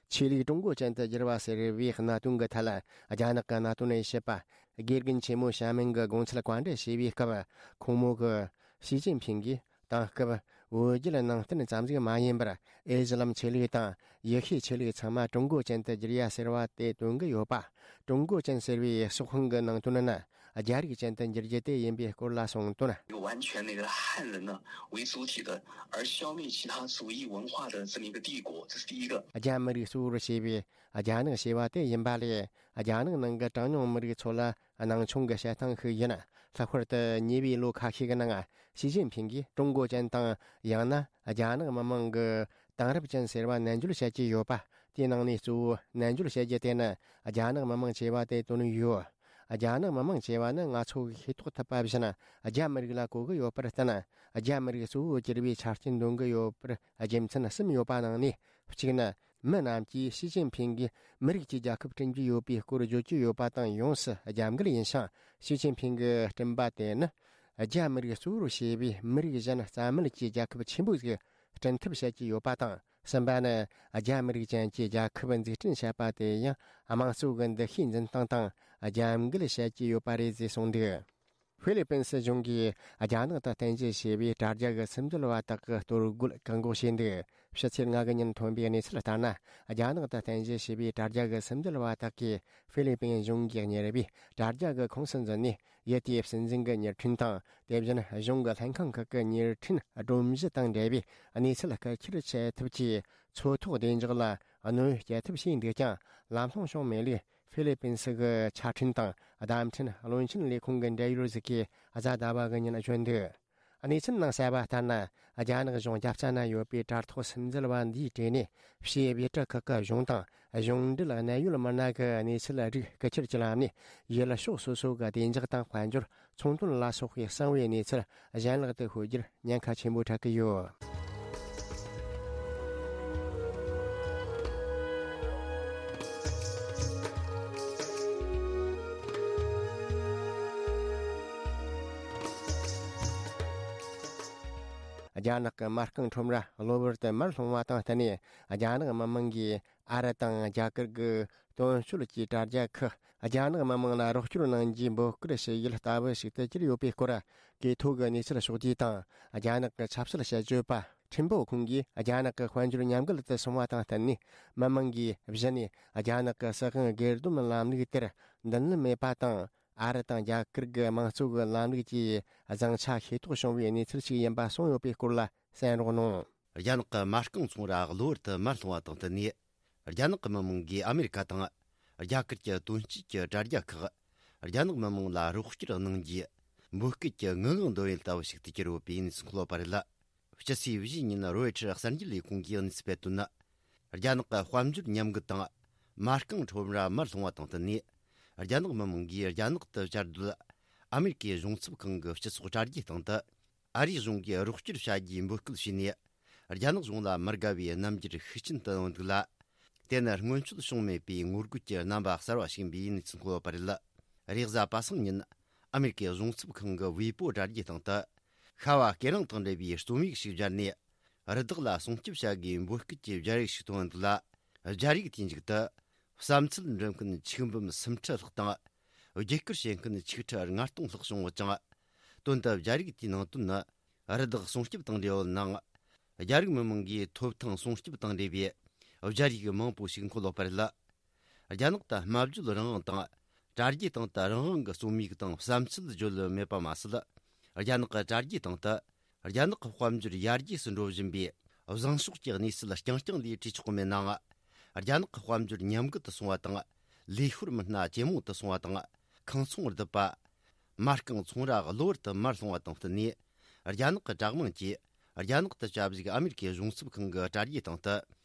ཆོས་ལུགས་ཀྲུང་གོ་ཅན་དུ་བསྒྱུར་བ་ཟེར་བའི་གནད་དོན་གྱི་ཐད་ལ། རྒྱ་ནག་གི་གནད་དོན་དབྱེ་ཞིབ་པ་དགེ་རྒན་ཆེན་མོ་ཞྭ་མིན་གྱིས་དགོངས་ཚུལ་བཀའ་འདྲི་བྱས་པའི་སྐབས། ཁོང་མོ་གིས་ཞི་ཅིན་ཕིང་གིས་དེང་སྐབས་བོད་བརྒྱུད་ནང་བསྟན་ཙམ་ཟིག་མ་ཡིན་པར། ཨི་ཟི་ལམ་ཆོས་ལུགས་དང་ཡེ་ཤུའི་ཆོས་ལུགས་ཚང་མ་ཀྲུང་གོ་ཅན་དུ་བསྒྱུར་ཡ་ཟེར་བ་དེ་སྟོན་གྱི་ཡོད་པ། ཀྲུང་གོ་ཅན་ཟེར་བའི་སྲོག་ཤིང་གི་ནང་དོན་ནི། རྒྱ་རིགས་ཅན་དུ་འགྱུར་རྒྱུ་དེ་ཡིན་པའི་སྐོར་ལ་གསུངས་དོན། 完全那个汉人呢为主体的，而消灭其他族裔文化的这么一个帝国，这是第一个。 རྒྱ་མི་རིགས་གཙོ་བོར་བྱས་པའི་རྒྱ་ནག་ཞེས་པ་དེ་ཡིན་པ་ལས། རྒྱ་ནག་ནང་གི་གྲངས་ཉུང་མི་རིགས་ཚོ་ལ་སྣང་ཆུང་གི་བྱེད་སྟངས་ཤིག་ཡིན། ལྷག་པར་དུ་ཉེ་བའི་ལོ་ཁ་ཤས་ཀྱི་ནང་། ཞི་ཅིན་ཕིང་གིས་ཀྲུང་གོ་ཅན་དང་། ཡང་ན་རྒྱ་ནག་མི་དམངས་ཀྱི་དེང་རབས་ཅན་ཟེར་བ་ནན་བརྗོད་བྱེད་ཀྱི་ཡོད་པ། དེའི་ནང་ནས་གཙོ་བོ་ནན་བརྗོད་བྱེད་རྒྱུ་དེ་ནི་རྒྱ་ནག་མི་དམངས་ཅེས་པ་དེ་དོན་ཡོད། རྒྱ་ནག་མི་དམངས་ཅེས་པ་ནི་ང་ཚོ་གིས་ཤེས་རྟོགས་ཐུབ་པ་བཞིན། རྒྱ་མི་རིགས་ལ་གོ་གི་ཡོད་པར་བརྟེན། རྒྱ་མི་རིགས་གཙོ་བོར་གྱུར་པའི་ཆ་རྐྱེན་འདོན་གི་ཡོད་པར་རྒྱུ་མཚན་གསུམ་ཡོད་པ་ནང་ནས་གཅིག་ནི། མི་རྣམས་ཀྱིས་ཞི་ཅིན་ཕིང་གིས་མི་རིགས་ཀྱི་རྒྱལ་ཁབ་བསྐྲུན་གྱི་ཡོད་པའི་སྐོར་བརྗོད་ཀྱི་ཡོད་པ་དང་། ཡོངས་སུ་རྒྱབ་འགལ་ཡིན་ཞིང་། ཞི་ཅིན་ཕིང་གི་བསྐྲུན་པ་དེ་ནི། རྒྱ་མི་རིགས་གཙོ་བོར་བྱས་པའི་མི་རིགས་གཞན་རྩ་མེད་ཀྱི་རྒྱལ་ཁབ་ཆེན་པོ་ཞིག་བསྐྲུན་ཐབས་བྱེད་ཀྱི་ཡོད་པ་དང་། གསུམ་པ་ནི། རྒྱ་མི་རིགས་ཅན་གྱི་རྒྱལ་ཁབ་འཛུགས་སྐྲུན་བྱེད་པ་དེ་ཡང་དམངས་གཙོ་གི་འདུ་ཤེས་འཛིན་སྟངས་དང་རྒྱབ་འགལ་བྱེད་ཀྱི་ཡོད་པ་རེད་ཅེས་གསུངས་འདུག་ཧྥི་ལི་པིན་སྲིད་གཞུང་གིས་རྒྱ་ནག་ཏུ་རྟེན་གཞི་བྱས་པའི་དྲ་རྒྱ་གི་སིམ་འཛུལ་བ་དག་གི་གཏོར་རྒོལ་བཀག་འགོག་བྱས་འདུག་ཕྱི་ཚེས་ལྔ་གི་ཉིན་ཐོན་པའི་གནས་ཚུལ་ལྟར་ན། རྒྱ་ནག་ཏུ་རྟེན་གཞི་བྱས་པའི་དྲ་རྒྱ་གི་སིམ་འཛུལ་བ་དག་གིས་ཧྥི་ལི་པིན་གཞུང་གིས་གཉེར་བའི་དྲ་རྒྱ་གི་ཁོངས་སུ་འཛུལ་ནས། ཡུལ་དེའི་སྲིད་འཛིན་གྱི་མྱུར་འཕྲིན་དང་། དེ་བཞིན་གཞུང་གི་ལྷན་ཁང་ཁག་གི་མྱུར་འཕྲིན་སྒྲོམ་གཞི་དང་འབྲེལ་བའི་གནས་ཚུལ་བརྐུ་འཁྱེར་བྱེད་ཐབས་ཀྱི་མཚོ་ཐོག་བདེ་འཇགས་ལ་གནོད་སྐྱེལ་ཐབས་བྱས་འདུག་ཀྱང་། ལམ་ལྷོང་བྱུང་མེད་ལུགས། ཧྥི་ལི་པིན་སི་གི་ཆ་འཕྲིན་དང་བརྡ་འཕྲིན་བློན་ཆེན་ལས་ཁུངས་ཀྱི་འབྲེལ་ཡོད་ཅིག་གིས་གཟའ་ཟླ་བ་གི་ཉིན་བརྗོད་འདུག་གནས་ཚུལ་ནང་གསལ་བ་ལྟར་ན། རྒྱ་ནག་གཞུང་རྒྱབ་རྩ་ན་ཡོད་པའི་དྲ་ཐོག་སིམ་འཛུལ་བ་འདིའི་གྲས་ནས། ཕྱིའི་བོད་རིགས་ཁག་གི་གཞུང་དང་གཞུང་འབྲེལ་གནད་ཡོད་མི་སྣ་གི་གནས་ཚུལ་རིགས་བརྐུ་འཁྱེར་གྱི་ལམ་ནས། ཡུལ་ཕྱོགས་སོ་སོ་གི་བདེ་འཇགས་དང་དཔལ་འབྱོར། ཚོང་དོན་ལ་སོགས་པའི་གསང་བའི་གནས་ཚུལ་གཞན་ལག་ཏུ་ཤོར་རྒྱུར་ཉེན་ཁ་ཆེན་པོ་འཕྲད་ཀྱི་ཡོད། རྒྱ་ནག་གི་མ་རྐང་ཁྲོམ་ར་གློ་བུར་དུ་མར་ལྷུང་བ་དང་བསྟུན་ནས། རྒྱ་ནག་མི་དམངས་ཀྱིས་ཨ་རི་དང་རྒྱ་གར་གྱི་དོན་གཅོད་ཀྱི་དྲ་རྒྱ་ཁག་རྒྱ་ནག་མི་དམངས་ལ་རོགས་སྐྱོར་གནང་རྒྱུའི་འབོད་སྐུལ་བྱེད་ཡུལ་ལྟ་བུ་ཞིག་ཏུ་གྱུར་ཡོད་པའི་སྐོར། གི་ཐོག་གི་གནས་ཚུལ་ཕྱོགས་བསྡུས་དང་། རྒྱ་ནག་གི་ཆབ་སྲིད་དཔྱད་བརྗོད་པ་ཁྲིན་པོ་ཁུང་གིས་རྒྱ་ནག་གི་དཔལ་འབྱོར་ཉམས་རྒུད་དུ་སོང་བ་དང་བསྟུན་ནས། མི་དམངས་ཀྱིས་གཞི་ནས་རྒྱ་ནག་གི་སྲིད་དབང་སྒེར་སྡོམ་ལམ་ལུགས་དེར་མདུན་ལམ་མེད་པ་དང་། ཨ་རི་དང་རྒྱ་གར་གྱི་དམངས་གཙོ་གི་ལམ་ལུགས་ཀྱི་བཟང་ཆ་ཤེས་རྟོགས་བྱུང་བའི་གནས་ཚུལ་ཞིག་ཡིན་པ་གསུངས་ཡོད་པའི་སྐོར་ལ་གསན་རོགས་གནང་། རྒྱ་ནག་གི་མ་རྐང་ཚོང་ར་གློ་བུར་དུ་མར་ལྷུང་བ་དང་བསྟུན་ནས། རྒྱ་ནག་གི་མི་དམངས་ཀྱིས་ཨ་མེ་རི་ཁ་དང་རྒྱ་གར་གྱི་དོན་གཅོད་ཀྱི་དྲ་རྒྱ་ཁག་རྒྱ་ནག་མི་དམངས་ལ་རོགས་སྐྱོར་གནང་རྒྱུའི་འབོད་སྐུལ་གྱི་ངུ་འབོད་འདོན་ཡུལ་ལྟ་བུ་ཞིག་ཏུ་གྱུར་ཡོད་པའི་གནས་ཚུལ་འཁོད་པ་རེད། སྤྱི་ཚེས་བཞིའི་ཉིན་རོའི་ཊར་གསར་འགྱུར་ལས་ཁུངས་ཀྱིས་གནས་ཚུལ་སྤེལ་དོན་ནི། རྒྱ་ནག་གི་དཔལ་འབྱོར་ཉམས་རྒུད་དང་མ་རྐང་ཁྲོམ་ར་མར་ལྷུང་བ་དང་བསྟུན་ནས། རྒྱ་ནག་མི་དམངས་ཀྱིས་རྒྱ་ནག་ཏུ་བཅའ་སྡོད་ཨ་མེ་རི་ཀའི་གཞུང་ཚབ་ཁང་གི་སྤྱི་ཚོགས་དྲ་རྒྱའི་སྟེང་དུ། ཨ་རིའི་གཞུང་གིས་རོགས་སྐྱོར་བྱ་རྒྱུའི་འབོད་སྐུལ་བྱས་ནས། རྒྱ་ནག་གཞུང་ལ་མི་དགའ་བའི་རྣམ་འགྱུར་ཤུགས་ཆེན་དུ་བཏོན་འདུག་ལ། དེ་ནི་སྔོན་ཆད་བྱུང་མེད་པའི་ངོ་རྒོལ་གྱི་རྣམ་པ་གསར་བ་ཞིག་ཡིན་པའི་གནས་ཚུལ་འཁོད་པ་རེད། རེས་གཟའ་པ་སངས་ཉིན་ཨ་མེ་རི་ཀའི་གཞུང་ཚབ་ཁང་གི་ཝེ་པོ་དྲ་རྒྱའི་སྟེང་དུ། ཤ་བ་སྐེ་རིང་དང་འབྲེལ་བའི་རྩོམ་ཡིག་ཞིག་སྦྱར་ནས། རི་དྭགས་ལ་སྲུང་སྐྱོབ་བྱ་དགོས་འབོད་སྐུལ་གྱི་སྦྱར་ཡིག་ཞིག་བཏོན་འདུག་ལ། སྦྱར་ཡིག་དེའི་མཇུག་ཏུ། བསམ་ཚུལ་འབྲི་མཁན་ཆིག་འབུམ་སུམ་ཁྲི་ལྷག་དང་། བརྒྱུད་སྐུར་བྱེད་མཁན་ཆིག་ཁྲི་ལྔ་སྟོང་ལྷག་བྱུང་ཡོད་ཅིང་། དོན་དུ་སྦྱར་ཡིག་དེའི་ནང་དོན་ནི། རི་དྭགས་སྲུང་སྐྱོབ་དང་འབྲེལ་བའི་ནང་། རྒྱ་རིགས་མི་དམངས་ཀྱི་ཐོབ་ཐང་སྲུང་སྐྱོབ་དང་འབྲེལ་བའི་སྦྱར་ཡིག་མང་པོ་ཞིག་འཁོད་ཡོད་པ་རེད། རྒྱ་ནག་ཏུ་སྨྲ་བརྗོད་རང་དབང་དང་། དྲ་རྒྱའི་སྟེང་དུ་རང་དབང་གི་རྩོམ་ཡིག་དང་བསམ་ཚུལ་བརྗོད་ལོས་མེད་པ་མ་ཟད། རྒྱ་ནག་གི་དྲ་རྒྱའི་སྟེང་དུ། རྒྱ་ནག་གི་དཔལ་འབྱོར་ཡར་རྒྱས་སུ་འགྲོ་བཞིན་པའི་བཟང་ཕྱོགས་ཀྱི་གནས་ཚུལ་རྐྱང་རྐྱང་ལས་བྲིས་ཆོག་གི་མེད་ནའང་། རྒྱ་ནག་གི་དཔལ་འབྱོར་ཉམས་རྒུད་དུ་སོང་བ་དང་། ལས་ཤོར་མི་སྣ་ཇེ་མང་དུ་སོང་བ་དང་། ཁང་ཚོང་རྡིབ་པ། མ་རྐང་ཚོང་ར་གློ་བུར་དུ་མར་ལྷུང་བ་དང་བསྟུན་ནས། རྒྱ་ནག་གི་དྲག་དམངས་ཀྱིས་རྒྱ་ནག་ཏུ་བཅའ་བཞུགས་ཨ་མེ་རི་ཀའི་གཞུང་ཚབ་ཁང་གི་དྲ་རྒྱའི་སྟེང་དུ་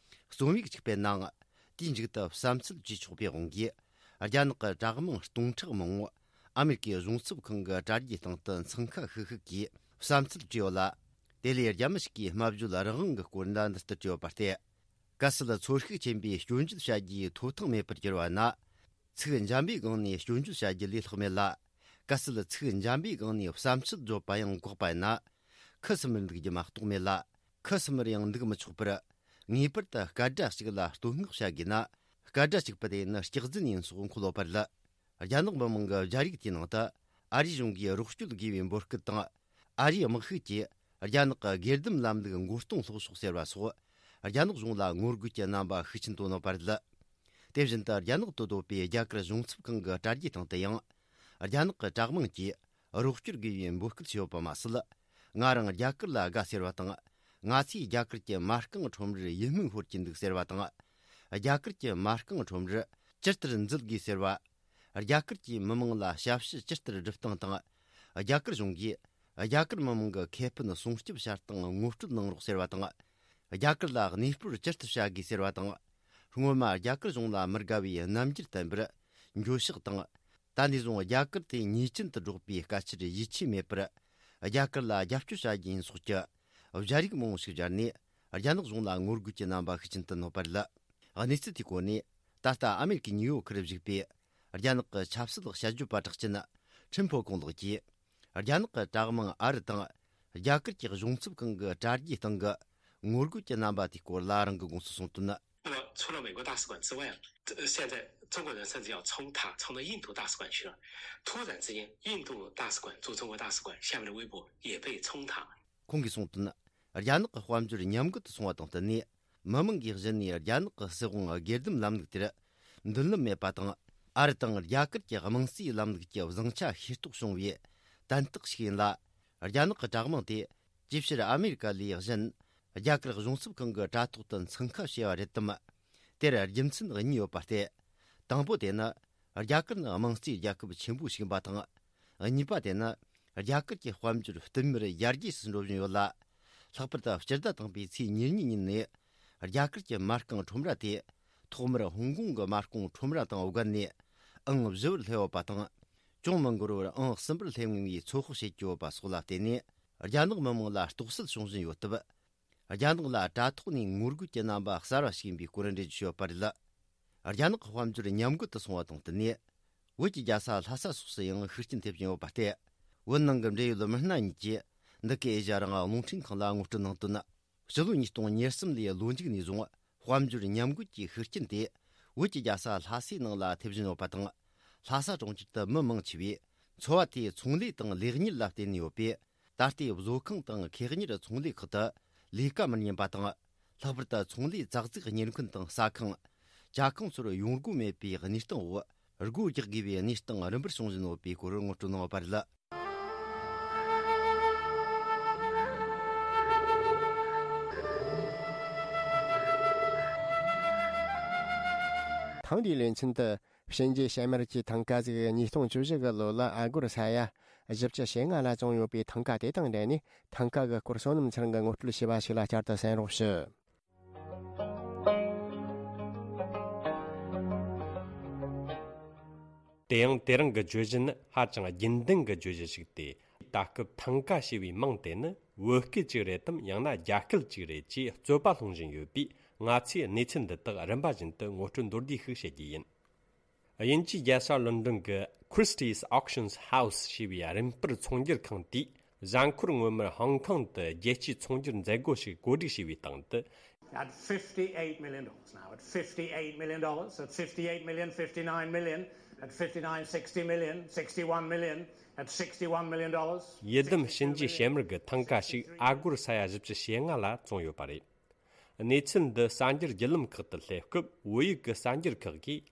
རྩོམ་ཡིག་ཅིག་སྤེལ་ནའང་། དེའི་མཇུག་ཏུ་བསམ་ཚུལ་བྲིས་ཆོག་པའི་དབང་གིས། རྒྱ་ནག་གི་དྲག་དམངས་སྟོང་ཕྲག་མང་བོ་ཨ་མེ་རི་ཀའི་གཞུང་ཚབ་ཁང་གི་དྲ་རྒྱའི་སྟེང་དུ་འཚང་ཁ་ཤིག་ཤིག་གིས་བསམ་ཚུལ་བྲིས་ཡོད་ལ། དེ་ལས་རྒྱ་མི་ཞིག་གིས་སྨྲ་བརྗོད་རང་དབང་གི་སྐོར་འདྲ་འདི་ལྟར་བྲིས་ཡོད་པ་སྟེ། གལ་སྲིད་ཚོར་ཤུགས་ཆེན་པོས་སྐྱོན་བརྗོད་བྱ་རྒྱུའི་ཐོབ་ཐང་མེད་པར་གྱུར་བ་ན། ཚིག་འཇམ་པའི་སྒང་ནས་སྐྱོན་བརྗོད་བྱ་རྒྱུ་ལས་ལྷག་མེད་ལ། གལ་སྲིད་ཚིག་འཇམ་པའི་སྒང་ནས་བསམ་ཚུལ་བརྗོད་པ་ཡང་འགོག་པ་ཡིན་ན། ཁུ་སིམ་མེར་འདུག་རྒྱུ་མ་གཏོགས་མེད་ལ། ཁུ་སིམ་མེར་ཡང་འདུག་མི་ཆོག་པར། ངེས་པར་དུ་སྐད་སྒྲ་གཅིག་ལ་བསྟོད་བསྔགས་བྱ་དགོས་ན། སྐད་སྒྲ་གཅིག་པ་དེ་ནི་སྐྱག་རྫུན་ཡིན་སོགས་འཁོད་ཡོད་པ་རེད། རྒྱ་ནག་མི་དམངས་ཀྱི་སྦྱར་ཡིག་དེའི་ནང་དུ། ཨ་རིའི་གཞུང་གིས་རོགས་སྐྱོར་དགོས་པའི་འབོད་སྐུལ་དང་། ཨ་རིའི་དམག་ཤུགས་ཀྱིས་རྒྱ་ནག་གི་སྒེར་སྡེམ་ལམ་ལུགས་མགོ་རྟིང་སློག་ཕྱོགས་ཟེར་བ་སོགས། རྒྱ་ནག་གཞུང་ལ་ངོ་རྒོལ་གྱི་རྣམ་པ་ཤུགས་ཆེན་བཏོན་ཡོད་པ་རེད། དེ་བཞིན་དུ་རྒྱ་ནག་ཏུ་སྡོད་པའི་རྒྱ་གར་གཞུང་ཚབ་ཁང་གི་དྲ་རྒྱའི་སྟེང་དུ་ཡང་། རྒྱ་ནག་གི་དྲག་དམངས་ཀྱིས་རོགས་སྐྱོར་དགོས་པའི་འབོད་སྐུལ་བྱས་ཡོད་པ་མ་ཟད། ང་རང་རྒྱ་གར་ལ་དགའ་ཟེར་བ་དང་། ང་ཚོས་རྒྱ་གར་གྱི་མ་རྐང་ཁྲོམ་རར་ཡིད་སྨོན་ཤོར་གྱི་འདུག་ཟེར་བ་དང་། རྒྱ་གར་གྱི་མ་རྐང་ཁྲོམ་རར་ཇི་ལྟར་འཛུལ་དགོས་ཟེར་བ། རྒྱ་གར་གྱི་མི་དམངས་ལ་ཞབས་ཞུ་ཇི་ལྟར་སྒྲུབ་སྟངས་དང་། རྒྱ་གར་གཞུང་གིས་རྒྱ་གར་མི་དམངས་ཀྱི་ཁེ་ཕན་སྲུང་སྐྱོབ་བྱ་སྟངས་ངོ་སྤྲོད་གནང་རོགས་ཟེར་བ་དང་། རྒྱ་གར་ལ་གནས་སྤོར་ཇི་ལྟར་བྱ་དགོས་ཟེར་བ་དང་། སྔོན་མ་རྒྱ་གར་གཞུང་ལ་མི་དགའ་བའི་རྣམ་འགྱུར་བསྟན་པར་འགྱོད་བཤགས་དང་། ད་ནས་བཟུང་རྒྱ་གར་དེ་ཉེས་ཅན་དུ་སྒྲོག་པའི་སྐད་ཆར་ཡིད་ཆེས་མེད་པར། རྒྱ་གར་ལ་རྒྱབ་སྐྱོར་བྱ་རྒྱུ་ཡིན་སོགས་ཀྱི་སྦྱར་ཡིག་མང་བོ་ཞིག་སྦྱར་ནས། རྒྱ་ནག་གཞུང་ལ་ངོ་རྒོལ་གྱི་རྣམ་པ་ཤུགས་ཆེན་བསྟན་ཡོད་པ་རེད། གནས་ཚུལ་དེའི་སྐོར་ནས། ད་ལྟ་ཨ་མེ་རི་ཀའི་ནིའུ་ཡོག་ཁུལ་བཞུགས་པའི་རྒྱ་ནག་གི་ཆབ་སྲིད་དཔྱད་བརྗོད་པ་གྲགས་ཅན་ཁྲིན་ཕོ་ཀོང་ལགས་ཀྱིས། རྒྱ་ནག་གི་དྲག་དམངས་ཨ་རི་དང་རྒྱ་གར་གྱི་གཞུང་ཚབ་ཁང་གི་དྲ་རྒྱའི་སྟེང་གི་ ངོ་རྒོལ་གྱི་རྣམ་པ་དེའི་སྐོར་ལ་རང་གི་དགོངས་སུ་གསུངས་དོན། 那么除了美国大使馆之外啊，呃现在中国人甚至要冲塔，冲到印度大使馆去了。突然之间，印度大使馆驻中国大使馆下面的微博也被冲塔。 ཁོང་གིས་གསུངས་དོན། རྒྱ་ནག་གི་དཔལ་འབྱོར་ཉམས་རྒུད་དུ་སོང་བ་དང་བསྟུན་ནས། མི་མང་གིས་གཞི་ནས་རྒྱ་ནག་གི་སྲིད་དབང་སྒེར་སྡེམ་ལམ་ལུགས་དེར་མདུན་ལམ་མེད་པ་དང་། ཨ་རི་དང་རྒྱ་གར་གྱི་དམངས་གཙོའི་ལམ་ལུགས་ཀྱི་བཟང་ཆ་ཤེས་རྟོགས་བྱུང་བའི་དན་རྟགས་ཤིག་ཡིན་ལ། རྒྱ་ནག་གི་དྲག་དམངས་དེ་ཇེ་ཆེར་ཨ་མེ་རི་ཀ་ལས་གཞན། རྒྱ་གར་གཞུང་ཚབ་ཁང་གི་དྲ་ཐོག་ཏུ་འཚང་ཁ་བྱས་པ་རེད་དམ། དེར་རྒྱུ་མཚན་གཉིས་ཡོད་པ་སྟེ། དང་པོ་དེ་ནི། རྒྱ་གར་ནི་དམངས་གཙོའི་རྒྱལ་ཁབ་ཆེན་པོ་ཞིག་ཡིན་པ་དང་། གཉིས་པ་དེ་ནི། རྒྱ་གར་གྱི་དཔལ་འབྱོར་བསྟུད་མར་ཡར་རྒྱས་སུ་འགྲོ་བཞིན་ཡོད་ལ། ལྷག་པར་དུ་སྤྱི་ཟླ་དང་པོའི་ཚེས་ཉེར་གཉིས་ཉིན་ནས། རྒྱ་གར་གྱི་མ་རྐང་ཁྲོམ་ར་དེ། ཐོག་མར་ཧོང་ཀོང་གི་མ་རྐང་ཁྲོམ་ར་དང་བརྒལ་ནས། ཨང་བཞི་བར་སླེབས་ཡོད་པ་དང་། ཅུང་མི་འགོར་བར་ཨང་གསུམ་པར་སླེབས་ངེས་པའི་ཚོད་དཔག་བྱེད་ཀྱི་ཡོད་པ་སོགས་ལ་བརྟེན་ནས། རྒྱ་ནག་མི་དམངས་ལ་རྟོག་སེལ་བྱུང་བཞིན་ཡོད་སྟབས། རྒྱ་ནག་ལ་དྲ་ཐོག་ནས་ངོ་རྒོལ་གྱི་རྣམ་པ་གསར་བ་ཞིག་ཡིན་པའི་སྐོར་འགྲེལ་བརྗོད་བྱས་ཡོད་པ་རེད། རྒྱ་ནག་གི་དཔལ་འབྱོར་ཉམས་རྒུད་དུ་སོང་བ་དང་བསྟུན་ནས། བོད་ཀྱི་རྒྱལ་ས་ལྷ་ས་སོགས་སུ་ཡང་ཤུགས་རྐྱེན་ཐེབས་བཞིན་ཡོད་པ་སྟེ། བོད་ནང་གི་འབྲེལ་ཡོད་མི་སྣ་གཉིས་ཀྱིས་འདི་གའི་ཨེ་ཤ་ཡ་རང་དབང་རླུང་འཕྲིན་ཁང་ལ་ངོ་སྤྲོད་གནང་དོན། ཕྱི་ལོ་ཉིས་སྟོང་ཉེར་གསུམ་ལོའི་ལོ་མཇུག་ནས་བཟུང་དཔལ་འབྱོར་ཉམས་རྒུད་ཀྱི་ཤུགས་རྐྱེན་དེ། བོད་ཀྱི་རྒྱལ་ས་ལྷ་སའི་ནང་ལ་ཐེབས་བཞིན་ཡོད་པ་དང་། ལྷ་ས་གྲོང་ཁྱེར་དུ་མི་མང་ཆེ་བས་འཚོ་བ་དེ་ཚོང་ལས་དང་ལས་གཉེར་ལ་བརྟེན་ནས་ཡོད་པས། ད་ལྟའི་བཟོ་ཁང་དང་ཁེ་གཉེར་ཚོང་ལས་ཁག་ཏུ་ལས་ཀ་མི་རྙེད་པ་དང་། ལྷག་པར་དུ་ཚོང་ལས་ཙག་ཙིག་གཉེར་མཁན་དང་ཟ་ཁང་། ཇ་ཁང་ཚོར་ཡོང་སྒོ་མེད་པའི་གནས་སྟངས་འོག་སྒོ་རྒྱག་དགོས་པའི་གནས་སྟངས་རིམ་པར་བྱུང་བཞིན་ཡོད་པའི་སྐོར་ངོ་སྤྲོད་གནང་བ་རེད། ཐེངས་འདིའི་ལེ་ཚན་དུ། གཤིན་རྗེ་བྱེ་དམར་གྱི་ཐང་ཀ་ཟིག་ཉིས་སྟོང་བཅུ་བཞི་གི་ལོ་ལ་ཨ་སྒོར་ས་ཡ་བཞི་བཅུ་ཞེ་ལྔ་ལ་བཙོངས་ཡོད་པའི་ཐང་ཀ་དེ་དང་འབྲེལ་ནས། ཐང་ཀ་གི་སྐོར་བསོད་ནམས་ཚེ་རིང་གིས་ངོ་སྤྲོད་བྱས་པ་ཞིག་ལ་བསྐྱར་དུ་གསན་རོགས་ཞུ། དེ་ཡང་དེ་རིང་གི་བརྗོད་གཞི་ནི་ཧ་ཅང་རྒྱུན་ལྡན་གྱི་བརྗོད་གཞི་ཞིག་སྟེ། ད་སྐབས་ཐང་ཀ་ཞེས་པའི་མིང་དེ་ནི་བོད་སྐད་ཅིག་རེད་དམ། ཡང་ན་རྒྱ་སྐད་ཅིག་རེད་ཅེས་རྩོད་པ་སློང་བཞིན་ཡོད་པས། ང་ཚོས་གནས་ཚུལ་འདི་དག་རིམ་པ་བཞིན་དུ་ངོ་སྤྲོད་མདོར་བསྡུས་ཤིག་བཤད་རྒྱུ་ཡིན། དབྱིན་ཇིའི་རྒྱལ་ས་ལོན་ཌོན་གྱི་Christie's Auctions House ཞེས་པའི་རིན་སྤར་ཚོང་སྒྱུར་ཁང་དེས། གཟའ་འཁོར་སྔོན་མར་ཧོང་ཀོང་དུ་རྒྱལ་སྤྱིའི་ཚོང་སྒྱུར་མཛད་སྒོ་ཞིག་གོ་སྒྲིག་བྱས་པའི་སྟེང་དུ། At fifty-eight million dollars now, at fifty-eight million dollars, at fifty-eight million, fifty-nine million, at fifty-nine, sixty million, sixty-one million, at sixty-one million dollars. ཡི་དམ་གཤིན་རྗེ་བྱེ་དམར་གྱི་ཐང་ཀ་ཞིག་ཨ་སྒོར་ས་ཡ་བཞི་བཅུ་ཞེ་ལྔ་ལ་བཙོངས་ཡོད་པ་རེད། གནས་ཚུལ་འདི་གསར་འགྱུར་བརྒྱུད་ལམ་ཁག་ཏུ་སླེབས་སྐབས། བོད་ཡིག་གི་གསར་འགྱུར་ཁག་གིས།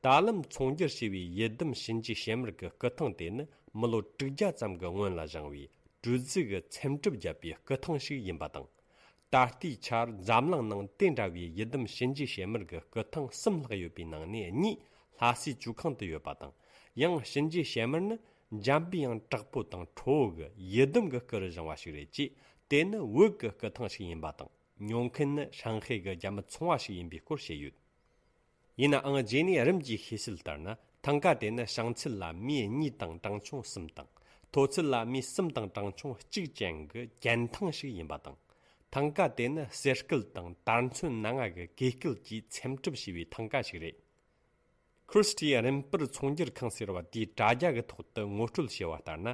ད་ལམ་ཚོང་སྒྱུར་བྱས་པའི་ཡི་དམ་གཤིན་རྗེ་བྱེ་དམར་གྱི་སྐུ་ཐང་དེ་ནི་མི་ལོ་དྲུག་བརྒྱ་ཙམ་གྱི་སྔོན་ལ་བཞེངས་པའི་གྲུ་གཟིངས་ཀྱི་ཚེམ་དྲུབ་བརྒྱབ་པའི་སྐུ་ཐང་ཞིག་ཡིན་པ་དང་། ད་ལྟའི་ཆར་འཛམ་གླིང་ནང་དེ་འདྲ་བའི་ཡི་དམ་གཤིན་རྗེ་བྱེ་དམར་གྱི་སྐུ་ཐང་གསུམ་ལྷག་ཡོད་པའི་ནང་ནས་གཉིས་ལྷ་སའི་ཇོ་ཁང་དུ་ཡོད་པ་དང་། ཡང་གཤིན་རྗེ་བྱེ་དམར་ནི་འཇམ་པའི་དབྱངས་དྲག་པོ་དང་ཁྲོ་བོ་གི་ཡི་དམ་གྱི་སྐུ་རུ་བཞེངས་པ་ཞིག་རེད་ཅེས། དེ་ནི་བོད་ཀྱི་སྐུ་ཐང་ཞིག་ཡིན་པ་དང་། ཉོ་མཁན་ནི་ཧྲང་ཧའེ་གི་རྒྱ་མི་ཚོང་བ་ཞིག་ཡིན་པའི་སྐོར་བཤད་ཡོད། ཡིན་ནའང་། རྗེས་ནས་རིམ་གྱིས་ཤེས་གསལ་ལྟར་ན། ཐང་ཀ་དེ་ནི་བྱང་ཚད་ལ་མི་གཉིས་དང་གྲངས་ཆུང་གསུམ་དང་། མཐོ་ཚད་ལ་མི་གསུམ་དང་གྲངས་ཆུང་གཅིག་ཅན་གྱི་གྱེན་ཐང་ཞིག་ཡིན་པ་དང་། ཐང་ཀ་དེ་ནི་གསེར་སྐལ་དང་དར་ཚོན་སྣ་ལྔ་གི་གོས་སྐལ་གྱིས་ཚེམ་དྲུབ་བྱས་པའི་ཐང་ཀ་ཞིག་རེད། Christie's རིན་སྤར་ཚོང་སྒྱུར་ཁང་ཟེར་བ་དེའི་དྲ་རྒྱ་གི་ཐོག་ཏུ་ངོ་སྤྲོད་བྱས་པ་ལྟར་ན།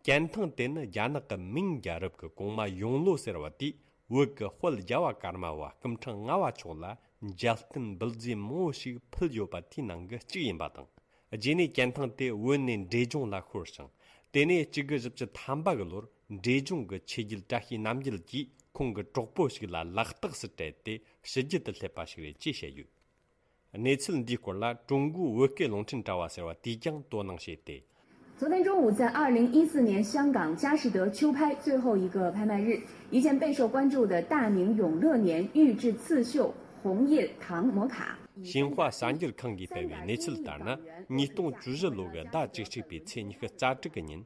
གྱེན་ཐང་དེ་ནི་རྒྱ་ནག་གི་མིང་རྒྱལ་རབས་ཀྱི་གོང་མ་ཡོང་ལོ་ཟེར་བ་དེས་བོད་ཀྱི་དཔལ་རྒྱལ་བ་ཀརྨ་པ་སྐུ་ཕྲེང་ལྔ་པ་མཆོག་ལ་མཇལ་རྟེན་འབུལ་རྫས་མང་པོ་ཞིག་ཕུལ་ཡོད་པ་དེའི་ནང་གི་གཅིག་ཡིན་པ་དང་། རྗེས་ནས་གྱེན་ཐང་དེ་བོད་ནས་འབྲས་ལྗོངས་ལ་ཤོར་ཞིང་། དེ་ནས་གཅིག་དགུ་བཞི་བཅུ་ཐམ་པ་གི་ལོར་འབྲས་ལྗོངས་ཀྱི་ཆོས་རྒྱལ་བཀྲ་ཤིས་རྣམ་རྒྱལ་གྱིས་ཁོང་གི་གྲོགས་པོ་ཞིག་ལ་ལག་རྟགས་སུ་སྤྲད་དེ་ཕྱི་རྒྱལ་དུ་སླེབས་པ་ཞིག་རེད་ཅེས་བཤད་ཡོད། གནས་ཚུལ་འདིའི་སྐོར་ལ་ཀྲུང་གོའི་བོད་སྐད་རླུང་འཕྲིན་དྲ་བ་ཟེར་བ་དེས་ཀྱང་དོ་སྣང་བྱས་ཏེ། 昨天中午，在二零一四年香港佳士得秋拍最后一个拍卖日，一件备受关注的大明永乐年玉质刺绣红印唐摩卡。 新华 གསར་འགྱུར་ཁང་གིས་སྤེལ་བའི་གནས་ཚུལ་ལྟར་ན། ཉིས་སྟོང་བཅུ་བཞི་ལོ་གི་ཟླ་བཅུ་གཅིག་པའི་ཚེས་ཉི་ཤུ་རྩ་དྲུག་གི་ཉིན།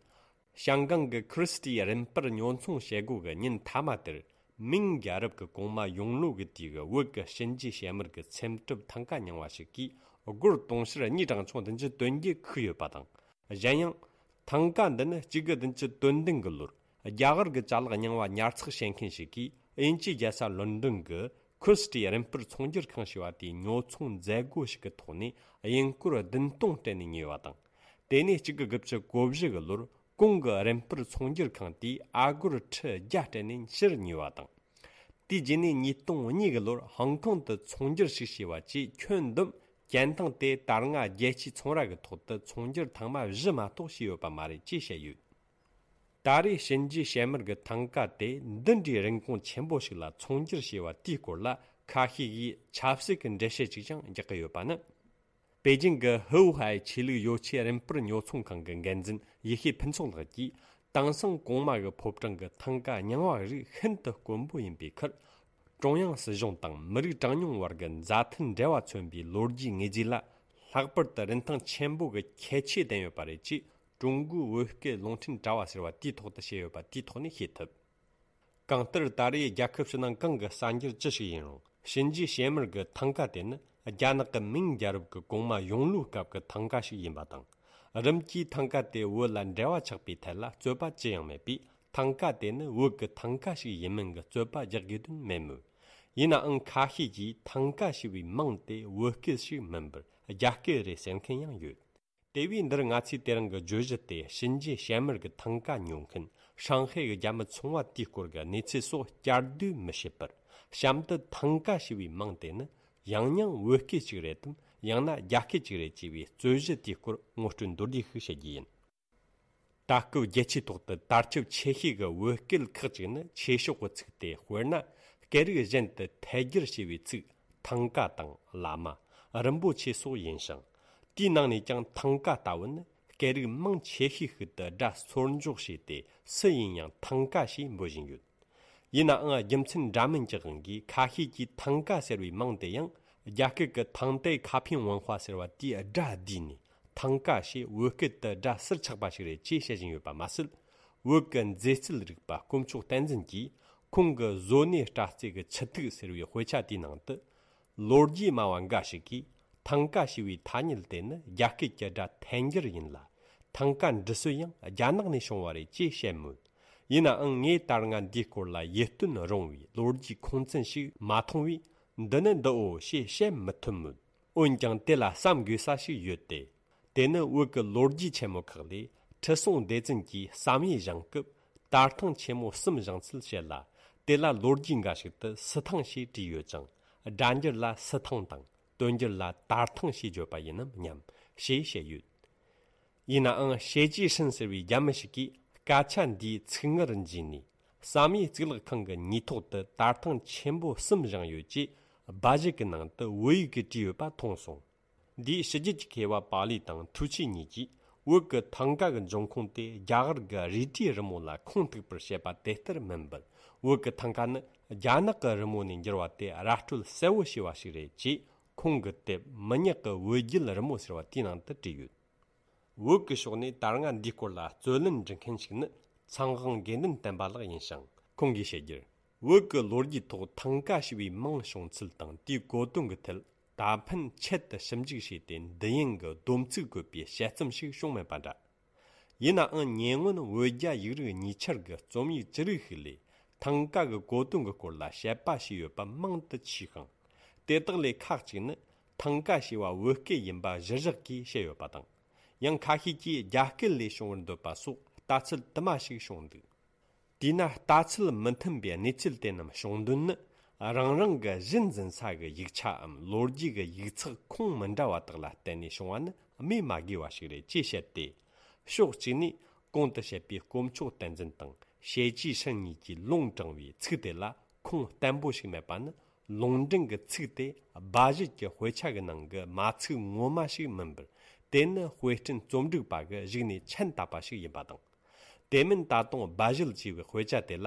ཞང་ཀང་གི་ཁི་རི་སི་ཏི་རིམ་སྤར་ཉོ་ཚོང་བྱེད་སྒོ་གི་ཉིན་མཐའ་མ་དེར། མིང་རྒྱལ་རབས་ཀྱི་གོང་མ་ཡོང་ལོ་གི་དུས་ཀྱི་བོད་ཀྱི་གཤིན་རྗེ་བྱེ་དམར་གྱི་ཚེམ་དྲུབ་ཐང་ཀ་རྙིང་བ་ཞིག་གིས་སྒོར་དུང་ཕྱུར་གཉིས་གྲངས་ཆུང་བདུན་ཅུ་དོན་བརྒྱད་ཁུག་ཡོད་པ་དང་། གཞན་ཡང་། ཐང་ཀ་འདི་ནི་གཅིག་དགུ་བདུན་ཅུ་དོན་བདུན་གྱི་ལོར་རྒྱ་གར་གྱི་ཅ་ལག་རྙིང་བ་ཉར་ཚགས་བྱེད་མཁན་ཞིག་གིས་དབྱིན་ཇིའི་རྒྱལ་ས་ལོན་ཌོན་གྱི་ཁི་རི་སི་ཏི་རིམ་སྤར་ཚོང་སྒྱུར་ཁང་ཞེས་པ་དེའི་ཉོ་ཚོང་མཛད་སྒོ་ཞིག་གི་ཐོག་ནས་དབྱིན་སྒོར་བདུན་སྟོང་སྤྲད་ནས་ཉོས་པ་དང་། དེ་ནས་གཅིག་དགུ་དགུ་བཅུ་གོ་བཞི་གི་ལོར་གོང་གི་རིམ་སྤར་ཚོང་སྒྱུར་ཁང་དེས་ཨ་སྒོར་ཁྲི་བརྒྱ་སྤྲད་ནས་ཕྱིར་ཉོས་པ་དང་། དེའི་རྗེས་ནས་ཉིས་སྟོང་གཉིས་ཀྱི་ལོར་ཧོང་ཀོང་དུ་ཚོང་སྒྱུར་ཞིག་བྱས་པ་བཅས་ཁྱོན་བསྡོམས་ཅན་ཐང་དེ་ད་སྔ་རྒྱལ་སྤྱིའི་ཚོང་ར་གི་ཐོག་ཏུ་ཚོང་སྒྱུར་ཐེངས་མ་བཞི་མ་གཏོགས་བྱས་ཡོད་པ་མ་རེད་ཅེས་བཤད་ཡོད། ད་རེས་ཞིན་ཅི་ཞལ་མར་གྱི་ཐང་ཀ་དེ་འདི་འདྲའི་རིན་གོང་ཆེན་པོ་ཞིག་ལ་ཚོང་སྒྱུར་བྱས་པ་དེའི་སྐོར་ལ་ཁ་ཤས་ཀྱིས་ཆབ་སྲིད་ཀྱི་འགྲེལ་བཤད་ཅིག་ཀྱང་རྒྱག་གི་ཡོད་པ་ནི། པེ་ཅིང་གི་ཧུའུ་ཧའེ་ཆོས་ལུགས་ཡོ་ཆས་རིན་སྤར་ཉོ་ཚོང་ཁང་གི་འགན་འཛིན་ཡེ་ཤེས་ཕུན་ཚོགས་ལགས་ཀྱིས། དེང་སང་གོང་མ་གི་ཕོ་བྲང་གི་ཐང་ཀ་རྙིང་བ་རིགས་ཤིན་ཏུ་དཀོན་པོ་ཡིན་པའི་ཁར། ཀྲུང་དབྱང་སྲིད་གཞུང་དང་མི་རིགས་གྲངས་ཉུང་བར་གྱི་མཛའ་མཐུན་འབྲེལ་བ་མཚོན་པའི་ལོ་རྒྱུས་དངོས་རྫས་ལ་ལྷག་པར་དུ་རིན་ཐང་ཆེན་པོ་གི་ཁྱད་ཆོས་ལྡན་ཡོད་པ་རེད་ཅེས་ཀྲུང་གོའི་བོད་སྐད་རླུང་འཕྲིན་དྲ་བ་ཟེར་བ་དེའི་ཐོག་ཏུ་བཤད་ཡོད་པ་དེའི་ཐོག་ནས་ཤེས་ཐུབ། གང་ལྟར་ད་རེས་རྒྱལ་ཁབ་ཕྱི་ནང་གང་གི་གསར་འགྱུར་ཅི་ཞིག་ཡིན་རུང་ཞིན་ཅི་ཞལ་མར་གྱི་ཐང་ཀ་དེ་ནི་རྒྱ་ནག་གི་མིང་རྒྱལ་རབས་ཀྱི་གོང་མ་ཡོང་ལུའི་སྐབས་ཀྱི་ཐང་ཀ་ཞིག་ཡིན་པ་དང་། རིམ་གྱིས་ཐང་ཀ་དེ་བོད་ལ་འབྲེལ་བ་ཆགས་པའི་ཐད་ལ་རྩོད་པ་ཅི་ཡང་མེད་པས་ཐང་ཀ་དེ་ནི་བོད་ཀྱི་ཐང་ཀ་ཞིག་ཡིན་མིན་གྱི་རྩོད་པ་རྒྱག་དགོས་དོན་མེད་མོད། ཡིན་ནའང་ཁ་ཤས་ཀྱིས་ཐང་ཀ་ཞེས་པའི་མིང་དེ་བོད་སྐད་ཞིག་མིན་པར་རྒྱ་སྐད་རེད་ཟེར་མཁན་ཡང་ཡོད། དེ་བས་འདིར་ང་ཚོས་དེ་རིང་གི་བརྗོད་གཞི་དེ་ཞིན་ཅི་ཞལ་མར་གྱི་ཐང་ཀ་ཉོ་མཁན་ཧྲང་ཧའེ་གི་རྒྱ་མི་ཚོང་བ་དེའི་སྐོར་གྱི་གནས་ཚུལ་སོགས་བསྐྱར་ཟློས་མི་བྱེད་པར། གཤམ་དུ་ཐང་ཀ་ཞེས་པའི་མིང་དེ་ནི་ཡང་སྙིང་བོད་སྐད་ཅིག་རེད་དམ། ཡང་ན་རྒྱ་སྐད་ཅིག་རེད་ཅེས་པའི་རྩོད་གཞི་དེའི་སྐོར་ངོ་སྤྲོད་མདོར་བསྡུས་ཤིག་བྱེད་རྒྱུ་ཡིན། ད་སྐབས་རྒྱལ་སྤྱིའི་ཐོག་ཏུ་དར་ཁྱབ་ཆེ་ཤོས་ཀྱི་བོད་སྐད་ཁག་ཅིག་ནི་ཆོས་ཕྱོགས་ཀྱི་ཚིག་སྟེ། དཔེར་ན། སྐད་རིགས་གཞན་དུ་ཐལ་སྒྱུར་བྱས་པའི་ཚིག་ཐང་ཀ་དང་བླ་མ། རིན་པོ་ཆེ་སོགས་ཡིན་ཞིང་། དེའི་ནང་ནས་ཀྱང་ཐང་ཀ་ལྟ་བུ་ནི་སྐད་རིགས་མང་ཆེ་ཤོས་ཤིག་ཏུ་སྒྲ་སོར་འཇོག་བྱས་ཏེ་སུ་ཡིན་ཡང་ཐང་ཀ་ཞེས་འབོད་བཞིན་ཡོད། ཡིན་ནའང་རྒྱུ་མཚན་འདྲ་མིན་གྱི་དབང་གིས་ཁ་ཤས་ཀྱིས་ཐང་ཀ་ཟེར་བའི་མིང་དེ་ཡང་རྒྱ་སྐད་ཀྱི་ཐང་ཏའི་ཁ་ཕིང་ཝན་ཧྭ་ཟེར་བ་དེའི་སྒྲ་བསྡུས་ནས་ཐང་ཀ་ཞེས་བོད་སྐད་དུ་སྒྲ་ཟུར་ཆག་པ་ཞིག་རེད་ཅེས་བཤད་བཞིན་ཡོད་པ་མ་ཟད། བོད་ཀྱི་མཛེས་རྩལ་རིག་པ་དཀོན་མཆོག་བསྟན་འཛིན་གྱིས་ཁོང་གི་བཟོ་གནས་སྒྲ་རྩལ་གྱི་ཆུ་ཐིགས་ཟེར་བའི་དཔེ་ཆ་དེའི་ནང་དུ། ལོ་རྒྱུས་སྨྲ་བ་འགའ་ཞིག་གིས་ཐང་ཀ་ཞེས་པའི་ཐ་སྙད་དེ་ནི་རྒྱ་སྐད་ཀྱི་སྒྲ་ཐལ་འགྱུར་ཡིན་ལ། ཐང་ཀ་འབྲི་སྲོལ་ཡང་རྒྱ་ནག་ནས་བྱུང་བ་རེད་ཅེས་བཤད་མོད། ཡིན་ནའང་ངས་ད་སྔ་འདིའི་སྐོར་ལ་ཡིད་རྟོན་རུང་བའི་ལོ་རྒྱུས་ཁུངས་བཙན་ཞིག་མ་མཐོང་བས། འདི་ནི་འདིའོ་ཞེས་བཤད་མི་ཐུབ་མོད། འོན་ཀྱང་དེ་ལ་བསམ་དགོས་ས་ཞིག་ཡོད་དེ། དེ་ནི་བོད་ཀྱི་ལོ་རྒྱུས་ཆེན་མོ་ཁག་ལས་ཁྲི་སྲོང་ལྡེ་བཙན་གྱིས་བསམ་ཡས་བཞེངས་སྐབས་དར་ཐང་ཆེན་མོ་གསུམ་བཞེངས་ཚུལ་བཤད་ལ། དེ་ལ་ལོ་རྒྱུས་འགའ་ཞིག་ཏུ་སི་ཐང་ཞེས་བྲིས་ཡོད་ཅིང་། སྒྲ་འགྱུར་ལ་སི་ཐང་དང་། དོན་འགྱུར་ལ་དར་ཐང་ཞེས་བརྗོད་པ་ཡིན་ནམ་སྙམ་ཞེས་བཤད་ཡོད། ཡིན་ནའང་ཞེ་ཅི་ཧྲིན་ཟེར་བའི་རྒྱ་མི་ཞིག་གིས་སྐད་ཆ་འདིའི་ཚིག་ངར་འཇུས་ནས། བསམ་ཡས་གཙུག་ལག་ཁང་གི་ཉེ་ཐོག་ཏུ་དར་ཐང་ཆེན་པོ་གསུམ་བཞེངས་ཡོད་ཅེས་སྦ་བཞེད་ཀྱི་ནང་དུ་བོད་ཡིག་གིས་བྲིས་ཡོད་པ་མཐོང་སོང་། འདིའི་ཕྱི་རྒྱལ་གྱི་མཁས་པ་པཱ་ལི་དང་ཐུའུ་ཆི་གཉིས་ཀྱིས་བོད་ཀྱི་ཐང་ཀ་གི་འབྱུང་ཁུངས་དེ་རྒྱ་གར་གྱི་རས་བྲིས་རི་མོ་ལ་ཁུངས་གཏུགས་པར་བཤད་པ་དེ་ལྟར་མིན་པར། བོད་ཀྱི་ཐང་ཀ་ནི་རྒྱ་ནག་གི་རི་མོ་ནས་འགྱུར་བ་དེ་ར་སྤྲོད་གསལ་བོ་བྱས་པ་ཞིག་རེད་ཅེས་ཁོང་གི་དེབ་མི་ཉག་གི་བོད་བརྒྱུད་རི་མོ་ཟེར་བ་དེའི་ནང་དུ་བྲིས་ཡོད། བོད་ཀྱི་ཕྱོགས་ནས་ད་སྔ་འདིའི་སྐོར་ལ་རྩོད་ལེན་འབྲི་མཁན་ཞིག་ནི་ཚངས་དབང་དགེ་འདུན་བསྟན་པ་ལགས་ཡིན་ཞིང་། ཁོང་གིས་བཤད་རྒྱུར། བོད་ཀྱི་ལོ་རྒྱུས་ཐོག་ཐང་ཀ་ཞེས་པའི་མིང་བྱུང་ཚུལ་དང་དེའི་གོ་དོན་གྱི་ཐད་ད་ཕན་ཆེད་དུ་ཞིབ་འཇུག་བྱས་ཏེ་འདི་ཡན་གྱི་སྡོམ་ཚིག་བཀོད་པའི་དཔྱད་རྩོམ་ཞིག་བྱུང་མེད་པ་འདྲ། ཡིན་ནའང་ཉེ་སྔོན་བོད་རྒྱ་ཡིག་རིགས་གཉིས་ཆར་གྱི་རྩོམ་ཡིག་ཅི་རིགས་ཤིག་ལས་ཐང་ཀ་གི་གོ་དོན་གྱི་སྐོར་ལ་དཔྱད་པ་བྱས་ཡོད་པ་མང་དུ་མཆིས་ཤིང་། དེ་དག་ལས་ཁག་ཅིག་ནི་ཐང་ཀ་ཞེས་པ་བོད་སྐད་ཡིན་པ་གཞིར་བཞག་གིས་བཤད་ཡོད་པ་དང་། ཡང་ཁ་ཤས་ཀྱིས་རྒྱ་སྐད་ལས་བྱུང་བར་འདོད་པ་སོགས་ལྟ་ཚུལ་དུ་མ་ཞིག་བྱུང་འདུག། དེས་ན་ལྟ་ཚུལ་མི་མཐུན་པའི་གནས་ཚུལ་དེ་རྣམས་བྱུང་དོན་ནི། རང་རང་གི་གཞི་འཛིན་ས་གི་ཡིག་ཆའམ་ལོ་རྒྱུས་ཀྱི་ཡིག་ཚགས་ཁུངས་མི་འདྲ་བ་དག་ལ་བརྟེན་ནས་བྱུང་བ་ནི་སྨོས་མ་དགོས་པ་ཞིག་རེད་ཅེས་བཤད་དེ། ཕྱོགས་གཅིག་ནས་གོང་དུ་བཤད་པའི་དཀོན་མཆོག་བསྟན་འཛིན་དང་ཞེ་ཅི་ཧྲིན་གཉིས་ཀྱིས་ལུང་དྲངས་པའི་ཚིག་དེ་ལ་ཁུངས་བརྟན་པོ་ཞིག་མེད་པ་ནི། ལུང་འདྲེན་གྱི་ཚིག་དེ་སྦ་བཞེད་ཀྱི་དཔེ་ཆ་གི་ནང་གི་མ་ཚིག་ངོ་མ་ཞིག་མིན་པར། དེ་ནི་དཔེ་སྐྲུན་རྩོམ་སྒྲིག་པ་གི་གཞུག་ནས་མཆན་བཏབ་པ་ཞིག་ཡིན་པ་དང་། དེ་མིན་ད་དུང་སྦ་བཞེད་ཅེས་པའི་དཔེ་ཆ་དེ་ལ་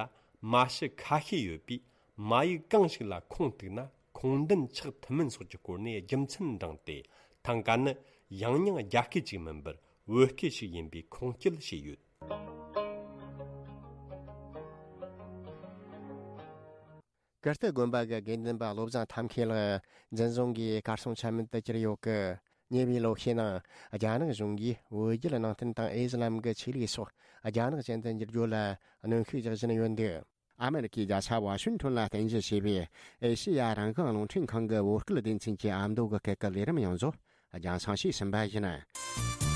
མ་ཕྱི་ཁ་ཤས་ཡོད་པས། མ་ཡིག་གང་ཞིག་ལ་ཁུངས་གཏུགས་ན་ཁུངས་ལྡན་ཆགས་ཐུབ་མིན་སོགས་ཀྱི་སྐོར་ནས་རྒྱུ་མཚན་འདྲེན་ཏེ། ཐང་ཀ་ནི་ཡང་སྙིང་རྒྱ་སྐད་ཅིག་མིན་པར་བོད་སྐད་ཞིག་ཡིན་པའི་ཁུངས་སྐྱེལ་བྱས་ཡོད། ཀིརྟི་དགོན་པ་གི་དགེ་འདུན་པ་བློ་བཟང་ཐབས་མཁས་ལགས་འཛིན་བཟུང་གིས་གར་སོང་ཆ་མེད་དུ་གྱུར་ཡོད་ཀི། ཉེ་བའི་ལོ་ཤས་ནང་རྒྱ་ནག་གཞུང་གིས་བོད་བརྒྱུད་ནང་བསྟན་དང་ཨི་སི་ལམ་གྱི་ཆོས་ལུགས་སོགས་རྒྱ་ནག་ཅན་དུ་འགྱུར་རྒྱུ་ལ་གནོན་ཤུགས་རྒྱག་བཞིན་ཡོད་འདུག། ཨ་མེ་རི་ཁའི་རྒྱལ་ས་ཝ་ཤིང་ཊོན་ལ་རྟེན་གཞི་བྱས་པའི་ཨེ་ཤེ་ཡ་རང་དབང་རླུང་འཕྲིན་ཁང་གི་བོད་སྐད་སྡེ་ཚན་གྱི་ཨ་མདོ་གི་སྐད་ཀྱི་ལས་རིམ་ཡོངས་རྫོགས་རྒྱང་སྲིང་བྱས་ཟིན་པ་ཡིན།